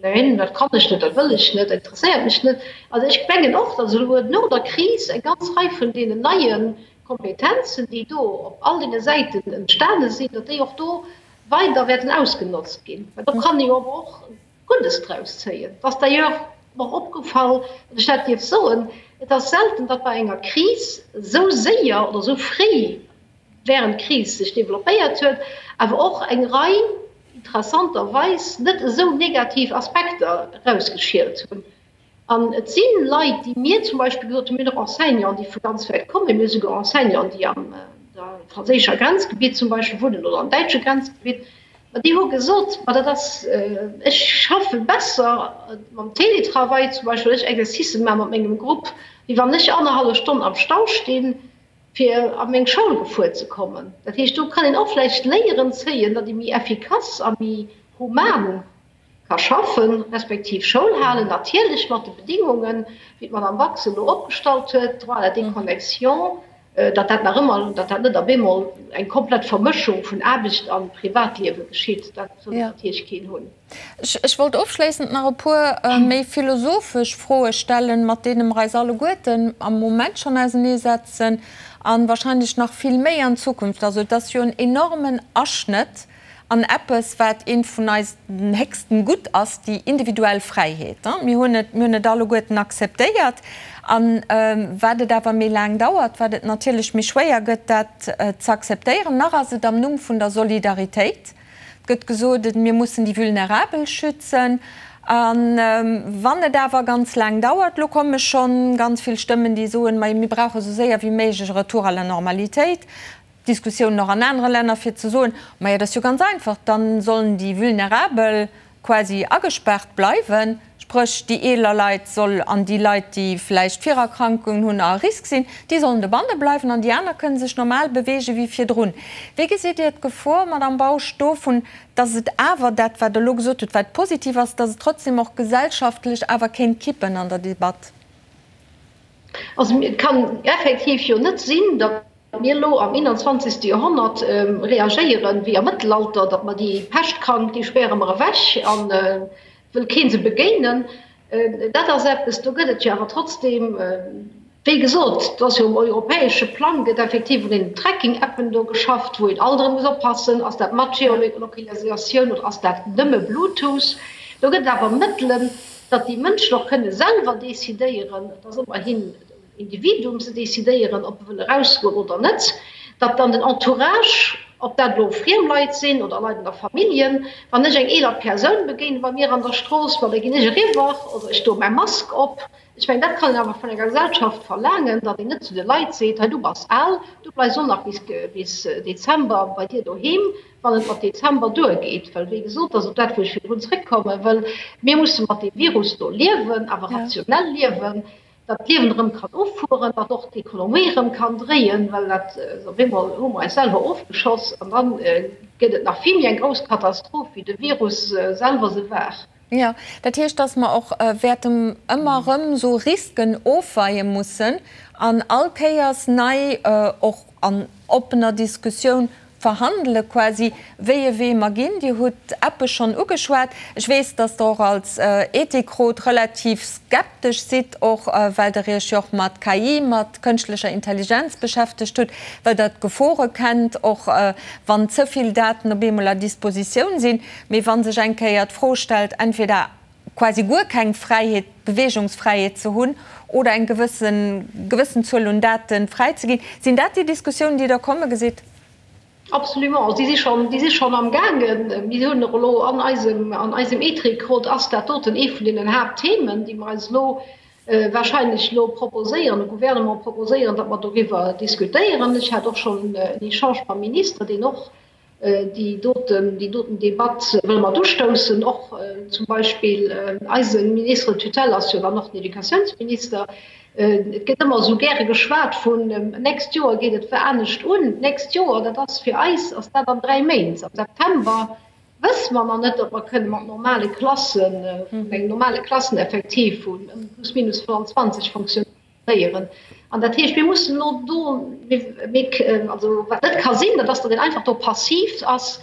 Neen, dat kann ech net, dat wëll ech net, dat interesséiert mech net. Also ech mengen och, datt elo no der Kris eng ganz Rei vun deenen neie Kompetenzen, déi do op all deene Säiten entstane sinn, datt déi och do weider wäerten ausgenotzt ginn. Well do kann ee jo awer och Guddes draus zéien. Et ass d'ailleurs mer opgefall, wann ech dat dierf soen, et ass selten, datt bei enger Kris esou séier oder esou fréi während d'Kris sech développéiert huet, awer och eng Rei interessanterweis net esou negativ Aspekter erausgeschielt hunn. An et si Leit, déi mir zum Beispill gesot hunn, mir hunn och Enseignanten, déi vu ganz wäit kommen, mir hu souguer Enseignanten, déi am franséischer Grenzgebitt zum Beispill wunnen oder am däitsche Grenzgebitt, ma déi hu gesot, ma dat ass, ech schaffe besser mam Télétravail zum Beispill, well ech Exercicen maache mat mengem Grupp, wéi wann ech annerhallef Stonn am Stau stinn, fir a meng Schoul gefuer ze kommen. Dat heescht, do kann een och vläicht Léieren zéien, datt ee méi effikass a méi human ka schaffen, respektiv Schoul halen, natierlech mat de Bedingungen, wéi d'Madame Bax se elo opgestallt huet, Droit à la déconnexion. datt dat nach ëmmer, datt dat net op eemol eng komplett Vermëschung vun Aarbecht a Privatliewe geschitt, dat wëll natierlech keen hunn. Ech wollt ofschléissend nach e puer méi philosophesch Froe stellen, mat deene mer eis alleguerten am Moment schonn auseneesetzen a wahrscheinlech nach vill méi an Zukunft. Also et ass jo en enormen Aschnëtt an eppes, wat eent vun eisen héchsten Gutt ass, déi individuell Fräiheet. Mir hunn et, mir hunn et alleguerten akzeptéiert. A wat et awer méi laang dauert, wat et natierlech méi schwéier gëtt, dat ze akzeptéieren. Nach ass et am Numm vun der Solidaritéit. Et gëtt gesot, mir mussen déi Vulnerabel schützen. A wann et awer ganz laang dauert, elo komme schonn ganz vill Stëmmen, déi soen, ma mir brauche sou séier wéi méiglech e Retour à la normalitéit. Diskussiounen och an anere Länner, fir ze soen, Majo, dat ass jo ganz einfach, da sollen déi Vulnerabel quasi agespaart bleiwen, spréch déi eeler Leit soll an déi Leit, déi vläicht Virerkrankungen hunn a à risque sinn, déi sollen dobanne bleiwen an déi aner kënne sech normal beweege wéi virdrun. Wéi gesitt Dir d'Gefor, Madamm Bausch, dovun, datt et awer dat, wat Der elo gesot hutt, wat positiv ass, datt et trotzdem och gesellschaftlech awer kéint kippen an der Debatt? Also et kann effektiv jo net sinn, datt mir elo am 21. Joerhonnert reagéieren wéi am Mëttelalter, datt mer déi Peschtkrank, déi späre mer ewech a wëll kee se begéinen. Dat ass eppes, do gëtt et jo awer trotzdeem, wéi gesot, et ass jo um europäesche Plang gëtt effektiv un deenen Tracking-Appen do geschafft, wou een alt erëm muss oppassen, ass dat mat Geolokalisatioun oder ass dat nëmme Bluetooth. Do gëtt et awer Mëttelen, datt déi Mënschen och kënne selwer decidéieren, et ass ëmmerhin Individuum ze decidéieren, ob e wëll erausgoen oder net, datt dann den Entourage, ob dat elo friem Leit sinn oder Leit an der Familljen, wann ech eng eeler Persoun begéine bei mir an der Strooss, ma da ginn ech eriwwer oder ech doe mäi Mask op. Ech mengen, dat kann een awer vun enger Gesellschaft verlaangen, datt een net zu de Leit seet, hei du bass al, du bleifs och nach bis Dezember bei dir doheem, wann et mat Dezember duergeet. Well wéi gesot, dat ass op dat, wou ech virdrun zréckkomme wëll, mir musse mat deem Virus do liewen, awer rationell liewen. datt d'Liewen erëm kann ufueren, datt och d'Ekonomie erëm kann dréien, well dat op eemol hu mer eis selwer ofgeschoss an da gëtt et nach vill méi eng grouss Katastroph, wéi de Virus selwer se war. Jo, dat heescht, datt mer och wäerten ëmmer erëm esou Risken ofweie mussen an all Kéiers nei och an oppener Diskussioun verhandele quasi, wéi e Wee mer ginn. Dir hutt Appe schonn ugeschwat. Ech weess, dass Der och als Ethikrot relativ skeptesch sidd, och well Der Iech jo och mat KI, mat kënschtlecher Intelligenz beschäftegt hutt, well Der d'Gefore kennt, och wann ze vill Daten op eemol à dispositioun sinn. Mee wa sech eng Kéier d'Fro stellt, entweder quasi guer keng Fräiheet, Beweegungsfräiheet ze hunn oder eng gewëssen gewëssen Zuel un Daten fräizeginn. Sinn dat déi Diskussiounen, déi Der komme gesitt? Absolument, déi si schonn, déi si schonn am gaangen. Mir hunn och elo an eisem, an eisem Ethikrot ass dat doten ee vun deenen Haaptthemen, déi mer eis elo wahrscheinlech elo proposéieren, dem Gouvernement proposéieren, datt mer doriwwer diskutéieren. Ech hat och schonn en Echange mam Minister, deen och Déi doten, déi doten Debatt wëlle mer ustoussen, och zum Beispill eise Ministre de tutelle ass jo dann och den Educatiounsminister. Et gëtt ëmmer esou gäre geschwat vun, nächst Joer geet et anescht un. D'nächst Joer, dat ass fir eis ass dat an 3 Méint. Am September wësse mer nach net, ob mer kënne mat normale Klassen, vun engem normale Klasseneffektiv vun plus minus 25 fonctionnéieren. Léieren. An dat heescht, mir mussen elo do, mir, also wat net ka sinn, dat ass, datt een einfach do passiv ass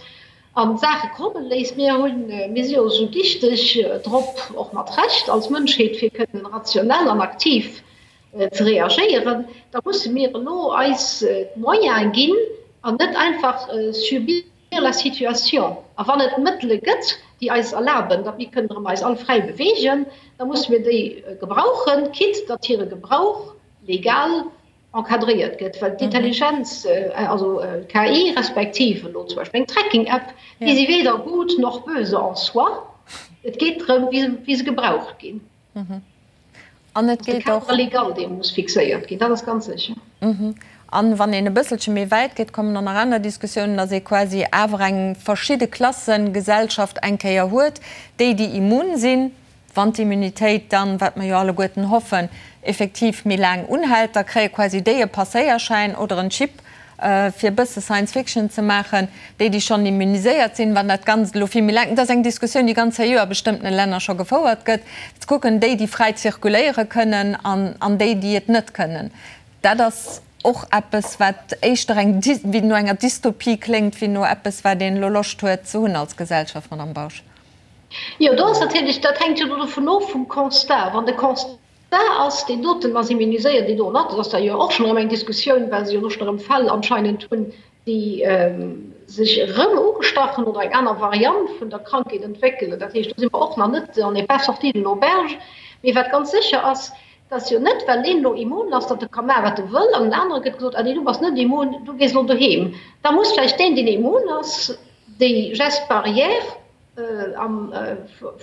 an d'Saache komme léisst. Mir hunn, mir si jo esou dichteg drop, och mat Recht als Mënschheet, fir kënnen rationell an aktiv ze reagéieren. Da musse mir elo eis d'Moyene ginn an net einfach subir la situation. A wann et Mëttele gëtt, déi eis erlaben, datt mir kënnen erëm eis all fräi beweegen, da musse mir déi gebrauchen, quitte datt hire Gebrauch legal encadréiert gëtt. Well d'Intelligenz, also d'KI respektiv elo zum Beispill eng Tracking-App, déi si weder gut noch böse en soi. Et geet drëm, wéi se gebraucht ginn. An et geet och. De Cadre légal, dee muss fixéiert ginn, dat ass ganz sécher. An wann een e bësselche méi wäit geet, kommen dann nach aner Diskussiounen, dass ee quasi awer eng verschidde Klassengesellschaft eng Kéier huet, déi, déi immun sinn, wann d'Immunitéit dann, wat mer jo alleguerten hoffen, effektiv méi laang unhält, da kréie quasi déi e Passéierschäin oder en Chip, fir e bësse Science Fiction ze maachen, déi, déi schonn immuniséiert sinn, wann dat Ganzt elo vill méi laang, dat ass eng Diskussioun, déi ganz seriö a bestëmmtene Länner scho gefouert gëtt, ze kucken, déi, déi fräi zirkuléiere kënnen an, an déi, déi et net kënnen. Dat ass. och eppes, wat éischter eng, wéi no enger Dystopie kléngt, wéi no eppes, wat een elo Loscht huet ze hunn als Gesellschaft, Madame Bausch. Jo, do ass natierlech, dat hänkt jo do dovun of, vum Constat. Wann de Constat ass, deen doten ass immuniséiert, déi do net, dat ass da jo och schonn erëm eng Diskussioun, well se jo elo schonn erëm Fäll anscheinend hunn, déi sech erëm ugestach hunn oder eng aner Variant vun der Krankheet entwéckelen. Dat heescht, do si mer och nach net, on n'est pas sorti de l'auberge. Mee wat ganz sécher ass, Et ass jo net, well een elo immun ass, datt e ka maachen, wat e wëll, an den anere gëtt gesot, ah nee, du bass net immun, du gees elo doheem. Da muss vläicht deen, deen immun ass, déi Gestes barrières am,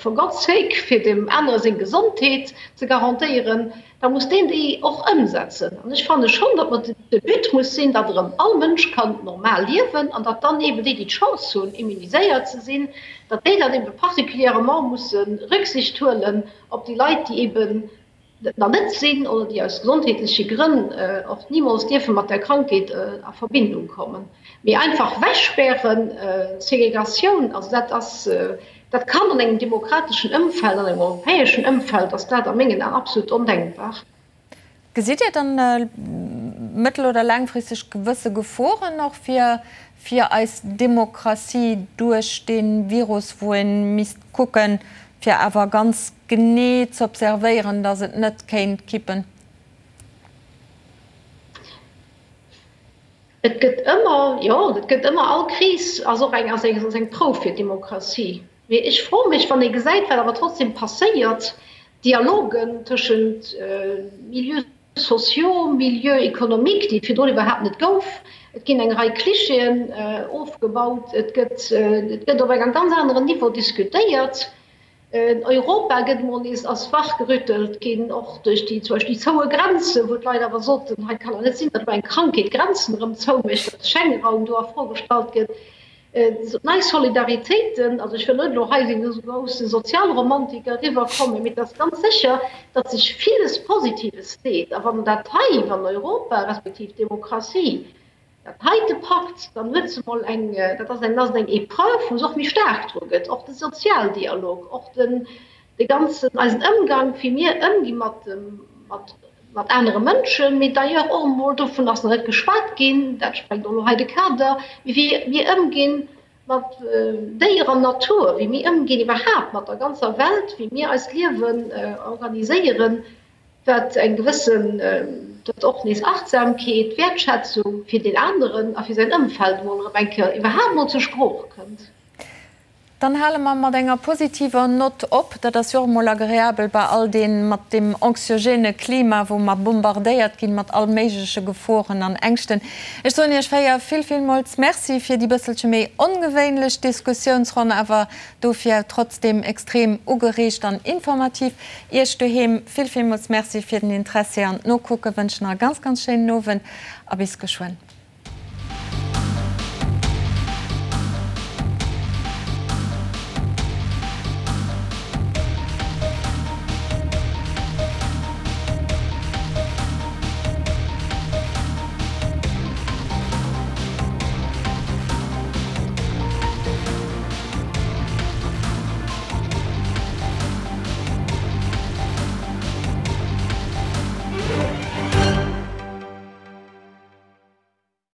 for God's sake, fir deem anere seng Gesondheet ze garantéieren, da muss deen déi och ëmsetzen. An ech fanne schonn, datt mer, de But muss sinn, datt erëm all Mënsch kann normal liewen an datt dann eeben déi, déi d'Chance hunn, immuniséiert ze sinn, datt déi dann eebe particulièrement musse Rücksicht huelen op déi Leit, déi eeben et nach net sinn oder déi aus gesondheetleche Grënn och nimools dierfe mat der Krankheet a Verbindung kommen. Mee einfach wegspären, Segregatioun, also dat ass, dat kann an engem demokrateschen Ëmfeld, an engem europäeschen Ëmfeld ass dat a mengen Aen absolut ondenkbar. Gesitt Dir dann mëttel oder laangfristeg gewësse Geforen och fir fir eis Demokratie duerch dee Virus, wou ee misst kucken, fir awer ganz genee z'observéieren, datt et net kéint kippen? Et gëtt ëmmer, jo, et gëtt ëmmer, all Kris ass och eng, ass eng, ass eng Prouf fir d'Demokratie. Mee ech froe mech, wann ee gesäit, wat awer trotzdem passéiert, Dialogen tëschent Milieux sociaux, Milieux économiques, déi et virdrun iwwerhaapt net gouf, et ginn eng Rei Clichéen ofgebaut, et gëtt, et gëtt op engem ganz aneren Niveau diskutéiert. Europa gëtt emol nees, ass wachgerüttelt ginn, och duerch déi, zum Beispill déi zoue Grenzen, wou d'Leit awer soten, hei kann et net sinn, datt elo eng Krankheet d'Grenzen erëm zoumécht, datt de Schengenraum do a Fro gestallt gëtt. Nei Solidaritéiten, also ech wëll net elo hei wéi esou grousse Sozialromantiker eriwwerkommen, mee et ass ganz sécher, datt sech villes Positives deet. A wann dat hei, wann Europa respektiv d'Demokratie Dat heite packt, dann huet se mol eng, dat ass eng, ass et eng Épreuve, wou se och méi staark dru gëtt, och de Sozialdialog, och den, de ganzen, eisen Ëmgang, wéi mir ëmgi mat dem, mat, mat anere Mënschen, mee d'ailleurs och emol, dovun ass nach net geschwat ginn, dat sprengt och elo hei de Kader, mee wéi mir ëmginn mat Déier an Natur, wéi mir ëmginn iwwerhaapt mat der ganzer Welt, wéi mir eist Liewen organiséieren, wat eng gewëssen, datt och nees Achtsamkeet, Wäertschätzung fir deen aneren a fir säin Ëmfeld emol erëm eng Kéier iwwerhaapt mol zur Sprooch kënnt. Dann hale mer mat enger positiver Nott op. Dat ass jo och emol agreabel bei all deem, mat deem anxiogène Klima, wou mer bombardéiert ginn mat all méigleche Geforen an Ängschten. Ech soen Iech 4 vill, villmools Merci fir déi bësselche méi ongewéinlech Diskussiounsronn, awer dofir trotzdeem extrem ugereegt an informativ. Iech doheem vill villmools Merci fir den Interessi an d'Nokucken. Wënschen nach e ganz ganz schéinen Owend a bis geschwënn.